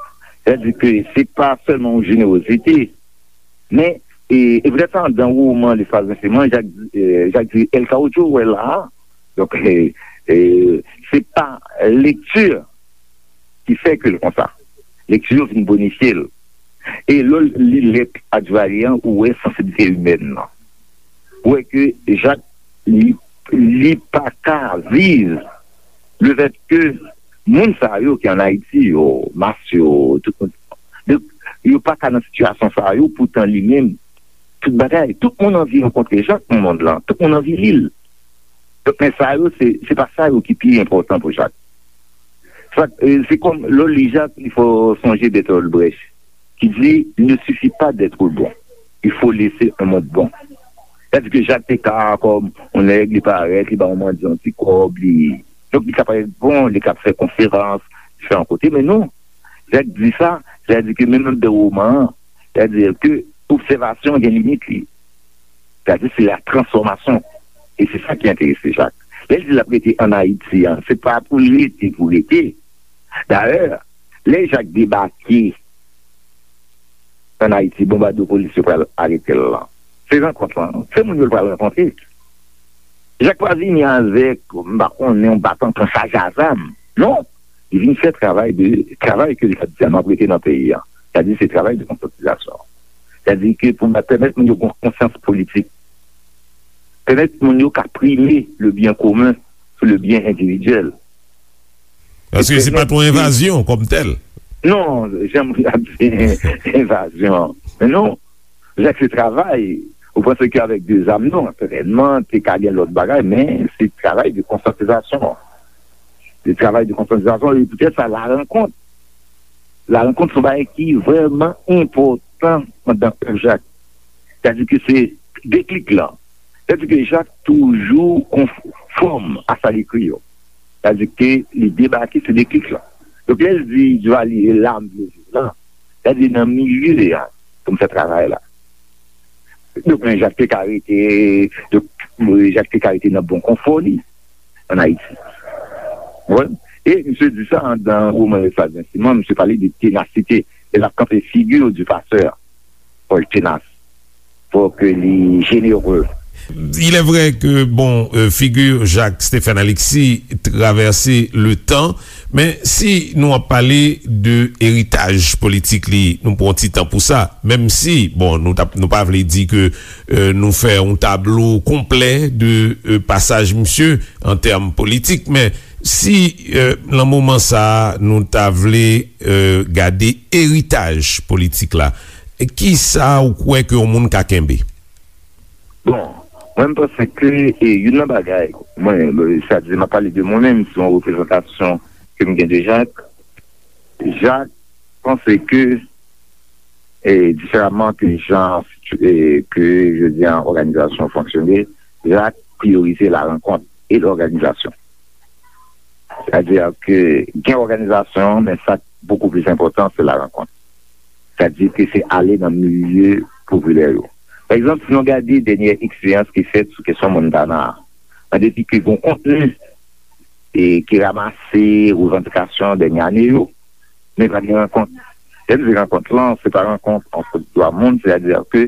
Sètadi ke se pa sèlman yon jenerozite, men, e, e poutèt sa, anndan woman Lespaz Renseman, Jak, e, Jak di El Caudillo, ou wè la a. Donk, e, e, se pa lekti ki fè ke l konsa. Lekti yo vin bonifye l. E lè w li lèt a Duvalier an, ou wè sansiblite imèn nan. Ou wè ke Jak, li, li pa ka viv lefètke moun sa yo ki ann Ayiti yo, mas yo, tout moun, donk, yo pa ka nan sitiyasyon sa yo, poutan li menm, tout bagay, tout moun anvi rankontre Jak nan mond lan, tout moun anvi li l. Donk, men sa yo, se, se pa sa yo ki pi enpòtan pou Jak. Sa, e, se kòm, lè w li Jak, il faut songer Bertolt Brecht, qui dit, il ne suffit pas d'être bon, il faut laisser un monde bon. Sètadi ke Jak te ka, kòm yon nèg, li parèt, li ba yon mandyan yon ti kòb, li, donk, li ka parèt bon, li ka fè konferans, li fè yon kote, men non, Jak di sa, sètadi ke menm anndan woman an, sètadi ke obsèvasyon gen limit li. Sètadi se la transfòmasyon. E se sa ki enterese Jak. Lè l di l ap rete ann Ayiti an, se pa pou l rete, pou rete. Dayè, lè Jak debake ann Ayiti, bonbadopolis yo pral arete l lan, se rankont lan, se moun yo l pral rankontre. Jak pa vini avèk, m pa konnen, yon baton pran chaje a zam. Non, li vin fè travay de, travay ke li t ap di a, m ap rete nan peyi a. Sètadi se travay de konsyantizasyon. Sètadi ke pou pèmèt moun yo gen konsyans politik, pèmèt moun yo ka prime le bien commun sou le bien individuel. Paske se pa t yon envazyon kòm tèl. Non, janm ap di envazyon. Men non, Jak se travay. Ou panse ke avèk de zam, non, sètènman, te ka gen lòt bagay, men se travay de konsyantizasyon. Se travay de konsyantizasyon, e poutèt sa, la rankont. La rankont se yon bagay ki vrèman enpòtan anndan èv Jak. Sètadi ke se deklik lan. Sètadi ke Jak toujou konfòm a sa l ekri yo. Sètadi ke li debake, se deklik lan. Donk, lè l di Duvalier, e la m vle viv lan, sètadi nan milye a pou m fè travay la. Donk, men Jak te ka rete, donk, Jak te ka rete nan bon konfò li ann Ayiti. Ou konprann? E misye di sa anndan woman Lesla Zensiman, misye pale de tenasite. E l ap kanpe figi du passeur. Fò l tenas. Fò ke li jenere. Il est vrai que, bon, euh, figure Jacques Stephen Alexis traverse le temps, men si nou ap pale de eritaj politik li, nou pran ti tan pou sa, menm si, bon, nou t ap, nou pa vle di ke, euh, nou fè yon tablo konplè de, euh, pasaj misye an tèm politik, men si, euh, nan moman sa a, nou ta vle, euh, gade eritaj politik la, kisa ou kwè ke yon moun ka kenbe? Bon, mwen, m panse ke, e, youn nan bagay, mwen, sa di, m ap pale de mwen menm, se yon reprezantasyon ke m gen de Jacques. Jacques panse ke, e, diferaman ke jan, e, ke, je veux dire, òganizasyon fonksyone, Jacques priyorize la rankont e lòganizasyon. Sètadi ke gen òganizasyon, men sa k bokou plis enpòtan, se la rankont. Sètadi ke se ale nan milye popilè yo. Pa egzanp, si nou gade dènyè eksperyans ki fèt sou kesyon Montana a, an depi ke gen kontni e ki ranmase revandikasyon dènye ane yo, men pa gen rankont. Lè m di rankont lan, se pa rankont ant dwa moun, sètadi ke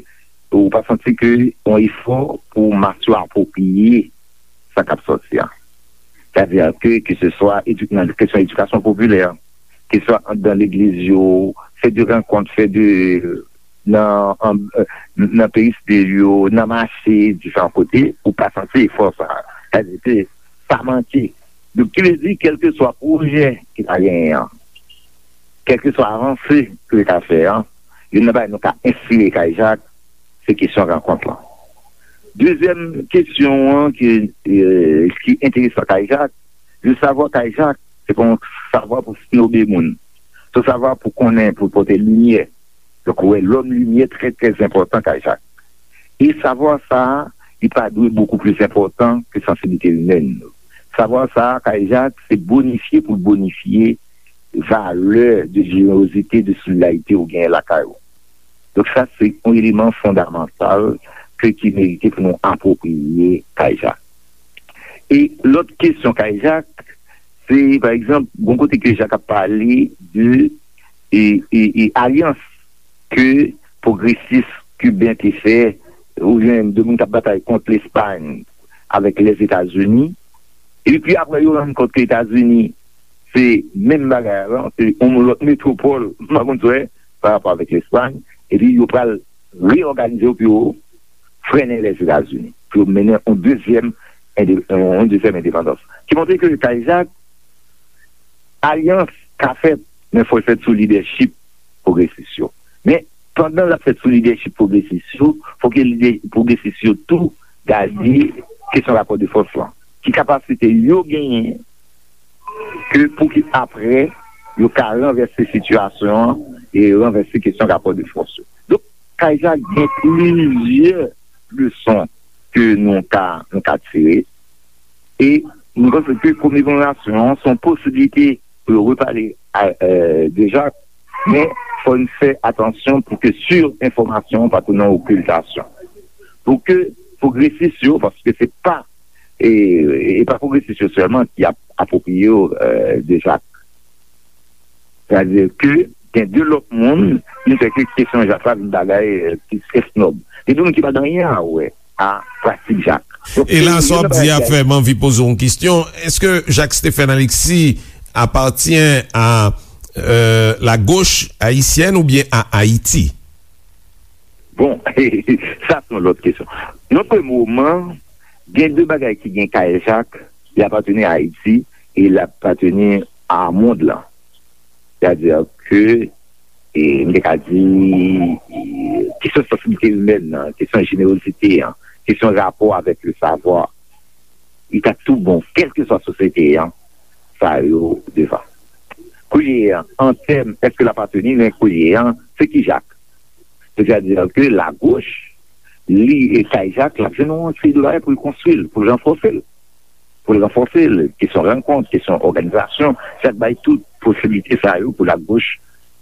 ou pa santi ke yon efò pou mas yo apwopriye sa k ap sòti a. Sètadi ke, ke se swa edu-, nan kesyon edikasyon popilè, ke se swa anndan legliz yo, fè de rankont, fè de, nan, an, nan peristil yo, nan mache, diferan kote, ou pa santi efò sa. Sètadi ke sa manke. Donk, ki vle di, kèlkeswa pwojè ki ta genyen an, kèlkeswa avanse ke yo ta fè an, youn nan bagay nou ka enspire Kay Jak, se kesyon rankont lan. Dezyèm kesyon an ki, e, ki enteresan Kay Jak, je veux savoir Kay Jak, se pa yon savwa pou snobe moun. Se yon savwa pou konnen, pou pote limyè. Donk, ou wè, lòm limyè trè, trè enpòtan Kay Jak. E savwa sa a, li pa dwe bokou plis enpòtan ke sansiblite imèn nou. Savwa sa a, Kay Jak, se bonifye pou l bonifye valè de jenerozite, de solidarite ou genyen lakay ou. Donk, sa, se yon eleman fondamantal ke, ki merite pou nou apwopriye Kay Jak. E lòt kesyon Kay Jak, se, pa egzanp, gon kote ke Jak ap pale de, e, e, e alyans ke pwogresis kiben te fè, oubyen de moun k ap batay kont Lespay avèk Lèzetazini. Epi apre, yo rann kont ke Etazini se menm bagay la, se yon lòt metwopòl, m pa konn sa w wè, pa rapò avèk Lespay. Epi yo pral reyòganize yo pou yo frennen Lèzetazini, pou yo mennen yon dezyèm ende-, yon dezyèm endepandans. Ki montre ke Kay Jak, alyans ka fèt, men fò l fèt sou lidèchip pwogresis yo. Men, pandan l ap fèt sou lidèchip pwogresis yo, fò ke lidè pwogresis yo tou gade kesyon rapò de fòs lan. Ki kapasite yo genyen ke pou ki apre yo ka ranvèse sitiyasyon an e ranvèse kesyon rapò de fòs yo. Donk, Kay Jak gen plizyè leson ke nou ka, nou ka tire. E nou panse ke komemorasyon an se yon posiblite pou yo repale a, e, de Jak, men fò n fè atansyon pou ke sirenfòmasyon pa tounen okiltasyon. Pou ke pwogresis yo, paske se pa, e, e pa pwogresis yo sèlman ki ap apwopriye yo, e, de Jak. Sètadi ke gen de lòt moun, ki fè ke kesyon Jak la vin bagay, e, plis esnòb. Gen de moun ki pa gen anyen a wè a pratik Jak. Donk, e la, sa w ap di a fè m anvi poze w yon kesyon. Èske Jak Stephen Alexis appartient à, euh, la gauche haïtienne ou bien à Haïti? Bon, sa se yon lòt kesyon. Nan premye moman, gen de bagay ki gen Kay Jak, li apateni a Ayiti e li apateni a mond lan. Sètadi ke, e, m te ka di, e, kesyon sansiblite imèn nan, kesyon jenerozite an, kesyon rapò avèk le savwa, li ta tou bon, kèlkeswa sosyete an, sa yo devan. Kounye a, an tèm, èske l apateni, men kounye a, se ki Jak? Sètadi ke lagoch, li, e, Kay Jak, l ap jwenn yon seri de bagay pou l konstwi l, pou l ranfòse l. Pou l ranfòse l, kesyon rankont, kesyon òganizasyon, Chak bay tout posiblite sa yo pou lagoch,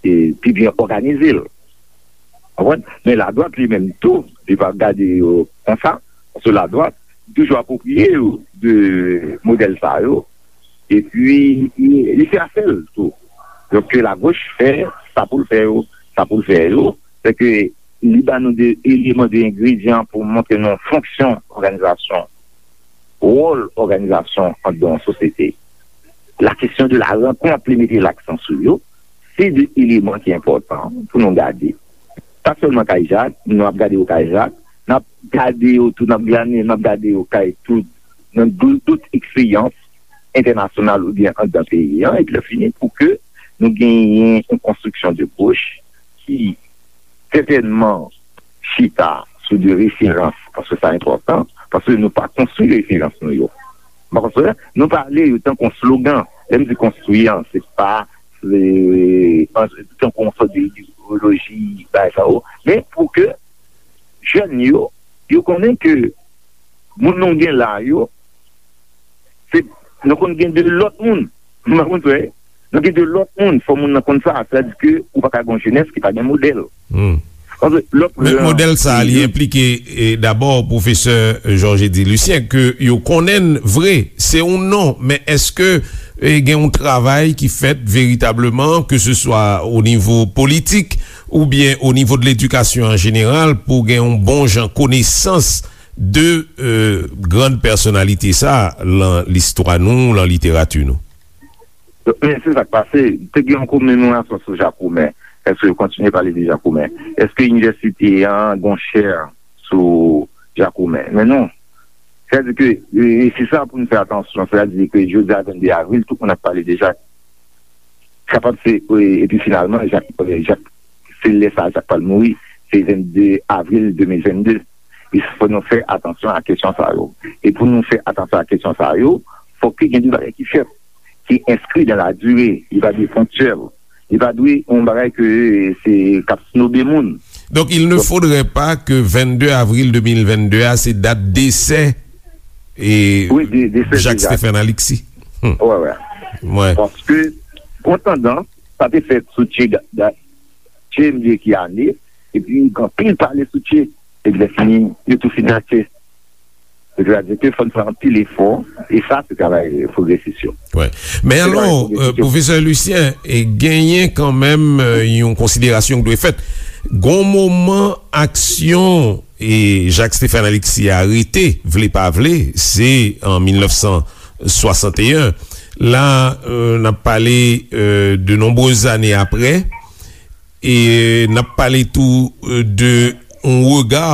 e, pi byen òganize l. Konprann? Men ladwat li menm tou, li pa gade yo konsa, paske ladwat toujou apwopriye yo de modèl sa yo. epi li, li fè afè l tou. Donk, ke lagoch fè sa pou l fè yo, sa pou l fè yo, se ke li ba nou de eleman, de engredyan pou montre nou fonksyon òganizasyon, wòl òganizasyon anndan yon sosyete. La kesyon de la rankont, li mete laksan sou yo, se de eleman ki enpòtan pou nou gade. Pa sèlman kay Jak, nou ap gade yo kay Jak, n ap gade yo tou, n ap gade, n ap gade yo kay tout, nan dou- dout eksperyans entènasyonal oubyen anndan peyi an, epi lè fini pou ke nou genyen yon konstriksyon de goch ki sètènman chita sou de referans, paske sa enpòtan, paske nou pa konstwi referans nou yo. Paske nou pale yo tankou yon slogan. Lè m di konstwi an, se pa, se, an, tankou yon sòt de idewoloji, bagay sa yo. Men pou ke jèn yo, yo konnen ke moun nou gen la yo, se, nou konn gen de lòt moun. Ou konprann, frè? Nou gen de lòt moun. Fò moun nan konn sa. Sa di ke ou pa ka gen yon jenès ki pa gen modèl. Paske lòt Men jan modèl sa a, li enplike, e, dabò, pwofesè Georges Eddy Lucien, ke yo konnen l vre, se yon non, men èske, e, gen yon travay ki fèt veritableman, ke se swa o nivo politik oubyen o nivo de ledikasyon an jeneral, pou gen yon bon jan konesans de, e, grann pèsonalite sa a lan listwa nou, lan literati nou? Men se sa k pase. Te gen yon komemorasyon sou Jakoumen. Èske yo kontinye pale de Jakoumen? Èske inivèsite an gen yon chè sou Jakoumen? Men non. Sètadi ke, e, e se sa pou nou fè atansyon. Sètadi ke jodi a, vennde avril, tout moun ap pale de Jak. Kapab se, e, epi finalman, Jak, e, Jak, se lè sa a Jak pral mouri. Se vennde avril de mil vennde. E fò nou fè atansyon a kesyon sa yo. E pou nou fè atansyon a kesyon sa yo, fòk ke gen de bagay ki fèt, ki enskri dan la dire. Li pa dwe ponktyèl. Li pa dwe yon bagay ke se k ap snobe moun. Donc, il ne faudrait pas que vennde avril deux mille vennde a, se dat desè e Wi, de, de fè Jacques deja. Stephen Alexis. Hmm. Wè, wè. Wè. Paske, gon tandans, sa te fèt sou Che, Da- Da- Che, m bliye ki ane, epi gen anpil pale sou Che, epi lè fini, yo tou fin nan Che. Sètadi ke fò n fè anpil efò, e sa se travay pwogresis yo. Wè. Men Se alò, travay pwogresis euh, yo. Pwofesè Lucien, e genyen kanmenm, euh, yon konsiderasyon ki dwe fèt. Gon moman aksyon e Jacques Stephen Alexis arete, vle pa vle, se an mil nèf san swasanteyen. La, euh, n ap pale, euh, de nonbrez ane apre, e n ap pale tou, euh, de yon rega,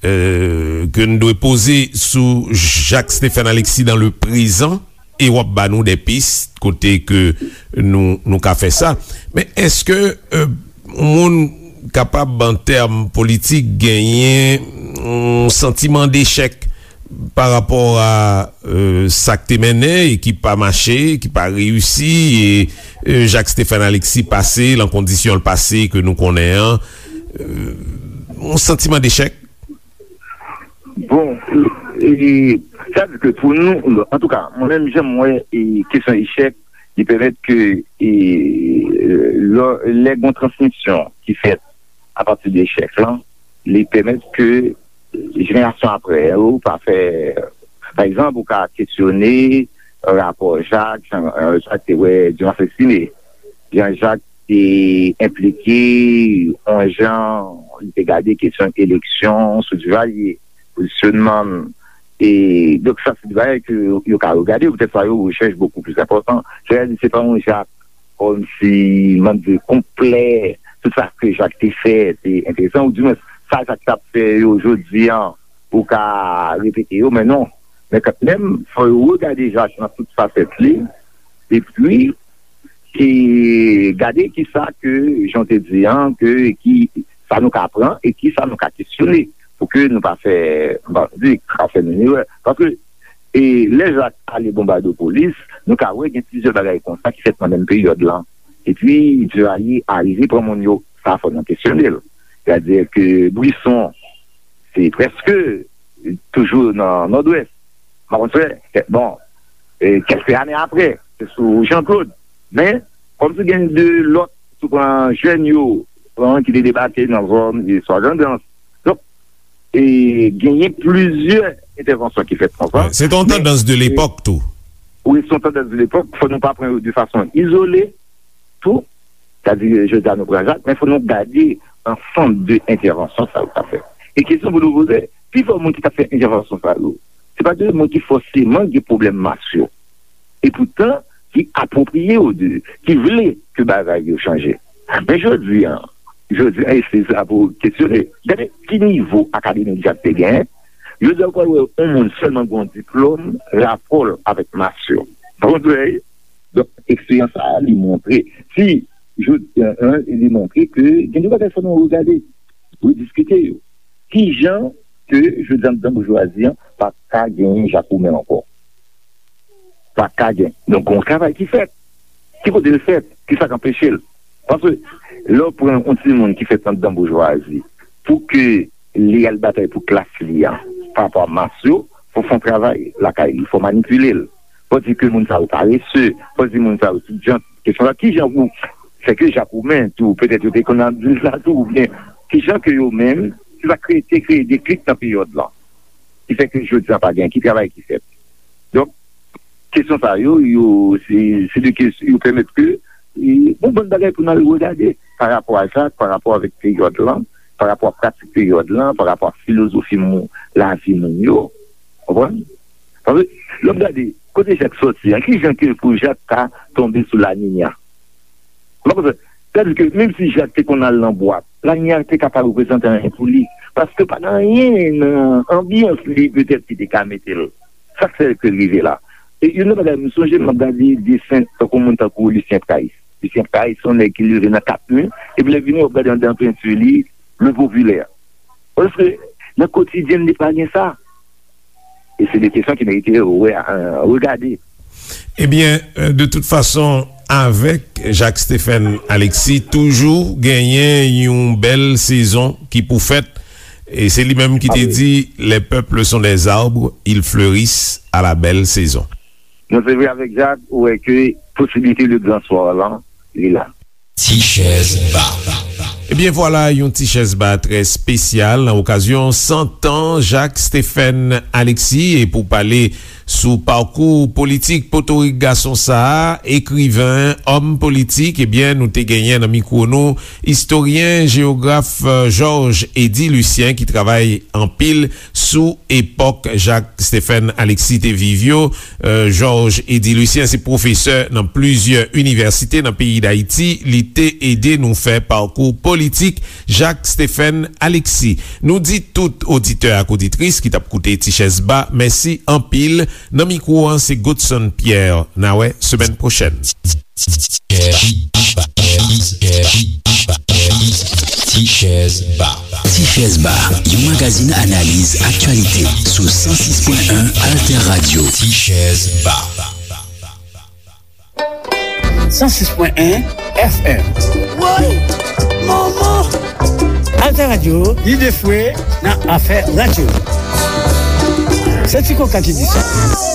euh, ke n dwe poze sou Jacques Stephen Alexis dans le présent, e w ap ba nou de pis kote ke nou, nou ka fè sa. Men èske, euh, yon moun kapab, an tèm politik, genyen yon santiman dechèk pa rapò a, euh, sa k te mennen e ki pa mache, ki pa reyisi, e, euh, Jacques Stephen Alexis pase, lan kondisyon l pase ke nou konnen an, euh, yon santiman dechèk? Bon, e, sa di ke pou nou, antouka, mwen menm, jan m wè, e, kesyon echèk, li pèmèt ke, e, lè, lè gon transmisyon ki fèt apati de echèk lan, li pèmèt ke jenerasyon apre yo pa fè, pa egzanp, ou ka kesyone rapò Jak, jan, euh, Jak te wè Dumas Estimé. Jan Jak te enplike, yon jan li te gade kesyon eleksyon sou Duvalier, pozisyonman l. E, donk, sa se de bagay ke yo ka regade, poutèt sa yo rechèch bokou plis enpòtan. Sètadi, se pa yon Jak kòmsi, mande konplè, tout sa ke Jak te fè, te enteresan, oudimwens, sa Jak t ap fè yo jodi an, ou ka repete yo, men non. Men kanmenm, fò yo regade Jak nan tout fasèt li, epi, e gade kisa ke, jan w te di an, ke, ki, sa nou ka pran e kisa nou ka kesyone, pou ke nou pa fè, m pa di, ka fè menm erè. Paske, e lè Jak ale Bonbadopolis, nou ka wè gen plizyè bagay konsa ki fèt nan menm peryòd lan. Epi, Duvalier arive pran moun yo, sa fò nou kesyone l. Sètadi ke Brisson, se prèske toujou nan Nòdwès. Mwen, bon, e, kèlke ane apre, se sou Jean Claude. Men, kòmsi gen de lòt, si w pran jèn yo, pran ki te debake nan zòn, e swa Grandans. Donk, e genyen plizyè entèvansyon ki fèt konsa. Se te yon tandans de lepòk tou. Ou wè, se yon tandans de lepòk, fò nou pa pran yo de fason izole, tou. Sa di, jodi a nou pran Jak, men fò nou gade ansanm de entèvansyon sa yo ka fè. E kesyon pou nou poze, pifò moun ki t ap fè entèvansyon sa yo, se pa de moun ki fòseman gen pwoblèm mas yo. E poutan, ki apwopriye yo de, ki vle ke bagay yo chanje. Men jodi a, jodi a, e se sa pou kesyone. Gade ki nivo akademik Jak te genyen. Jodi a, ou pral wè yon moun sèlman gen yon diplòm, rapò l avèk mas yo. Ou konprann? Donk, eksperyans sa a, li montre, si, jodi a, li montre ke gen de bagay fò nou regade, rediskite yo. Ki jan ke, jodi a, anndan boujwazi an, pa ka genyen Jak Oumen ankò? Pa ka gen. Donk, gon travay ki fèt. Ki kote l fèt? Ki sa k anpeche l? Paske, lè w pran yon timoun ki fèt anndan boujwazi, pou ke li al batay pou klas li a, pa rapò a mas yo, fò w fè yon travay lakay li, fò w manipile l. Fò w di ke moun sa yo parese, fò w di moun sa yo tout jan, kesyon la, ki jan pou fè ke Jak Oumen tou, petèt yo te konn ap di l sa tou, oubyen ki jan ke yo menm, se sa kreye, te kreye deklik nan peryòd lan. Ki fè ke jodi a pa gen, ki travay ki fèt. Donk, kesyon sa yo, yo, se, se de kesyon, yo pèmèt ke, e, bon, bann bagay pou n al regade pa rapò a sa, pa rapò avèk peryòd lan, pa rapò a pratik peryòd lan, pa rapò a filozofi moun, lavi moun yo. Konprann? Paske, lè w ap gade, kote Jak sòti a, ki jan ke pou Jak ta tonbe sou La Niña? Ou pa konprann? Sètadi ke menm si Jak te konn al nan bwat, La Niña te ka pa reprezante anyen pou li. Paske pa gen anyen nan anbyans li petèt ki te ka mete l. Sa k fè ke l rive la. E youn nan bagay, m sonje m ap gade desen tankou moun tankou Lucien Price. Lucien Price, se yon nèg ki leve nan kat mi, epi lè vini, w ap gade anndan penti li, le popilè. Paske nan kotidyen li pa gen sa. E se de kesyon ki merite wè, euh, regade. Ebyen, euh, de tout fason, avèk Jacques Stephen Alexis, toujou genyen yon bèl sezon ki pou fèt. E se li menm ki te di, les peuples sont des arbres, ils fleurissent à la belle saison. Non, se vre, avèk Jak, ou wè ke posibilite le grand soir lan, li la. Ti chèz ba. Ebyen vwala, yon ti chèz ba trè espesyal nan okazyon san tan Jacques Stephen Alexis. E pou pale sou pakou politik potorik gason sa a, ekriven, òm politik, ebyen nou te genyen nan mikwo nou istoryen, jewograf, euh, Georges Eddy Lucien ki travay anpil sou epòk Jacques Stephen Alexis te viv yo. Euh, Georges Eddy Lucien se pwofesè nan plizyè inivèsite nan peyi Dayiti. Li te ede nou fè pakou politik Jacques Stephen Alexis. Nou di tout oditè ak oditris ki t ap koute Ti Chèz Ba, mèsi anpil. Nan mikwo an, se Godson Pierre. N a wè semèn pwochèn. Ti Chèz Ba. Ti Chèz Ba, yon magazin analiz aktyalite sou san sis pwen en Alter Radio. Ti Chèz Ba. San sis pwen en F M. Woy! Manman! Alter Radio, lide fwe nan afè radyo. Se Ti Koka ki di sa.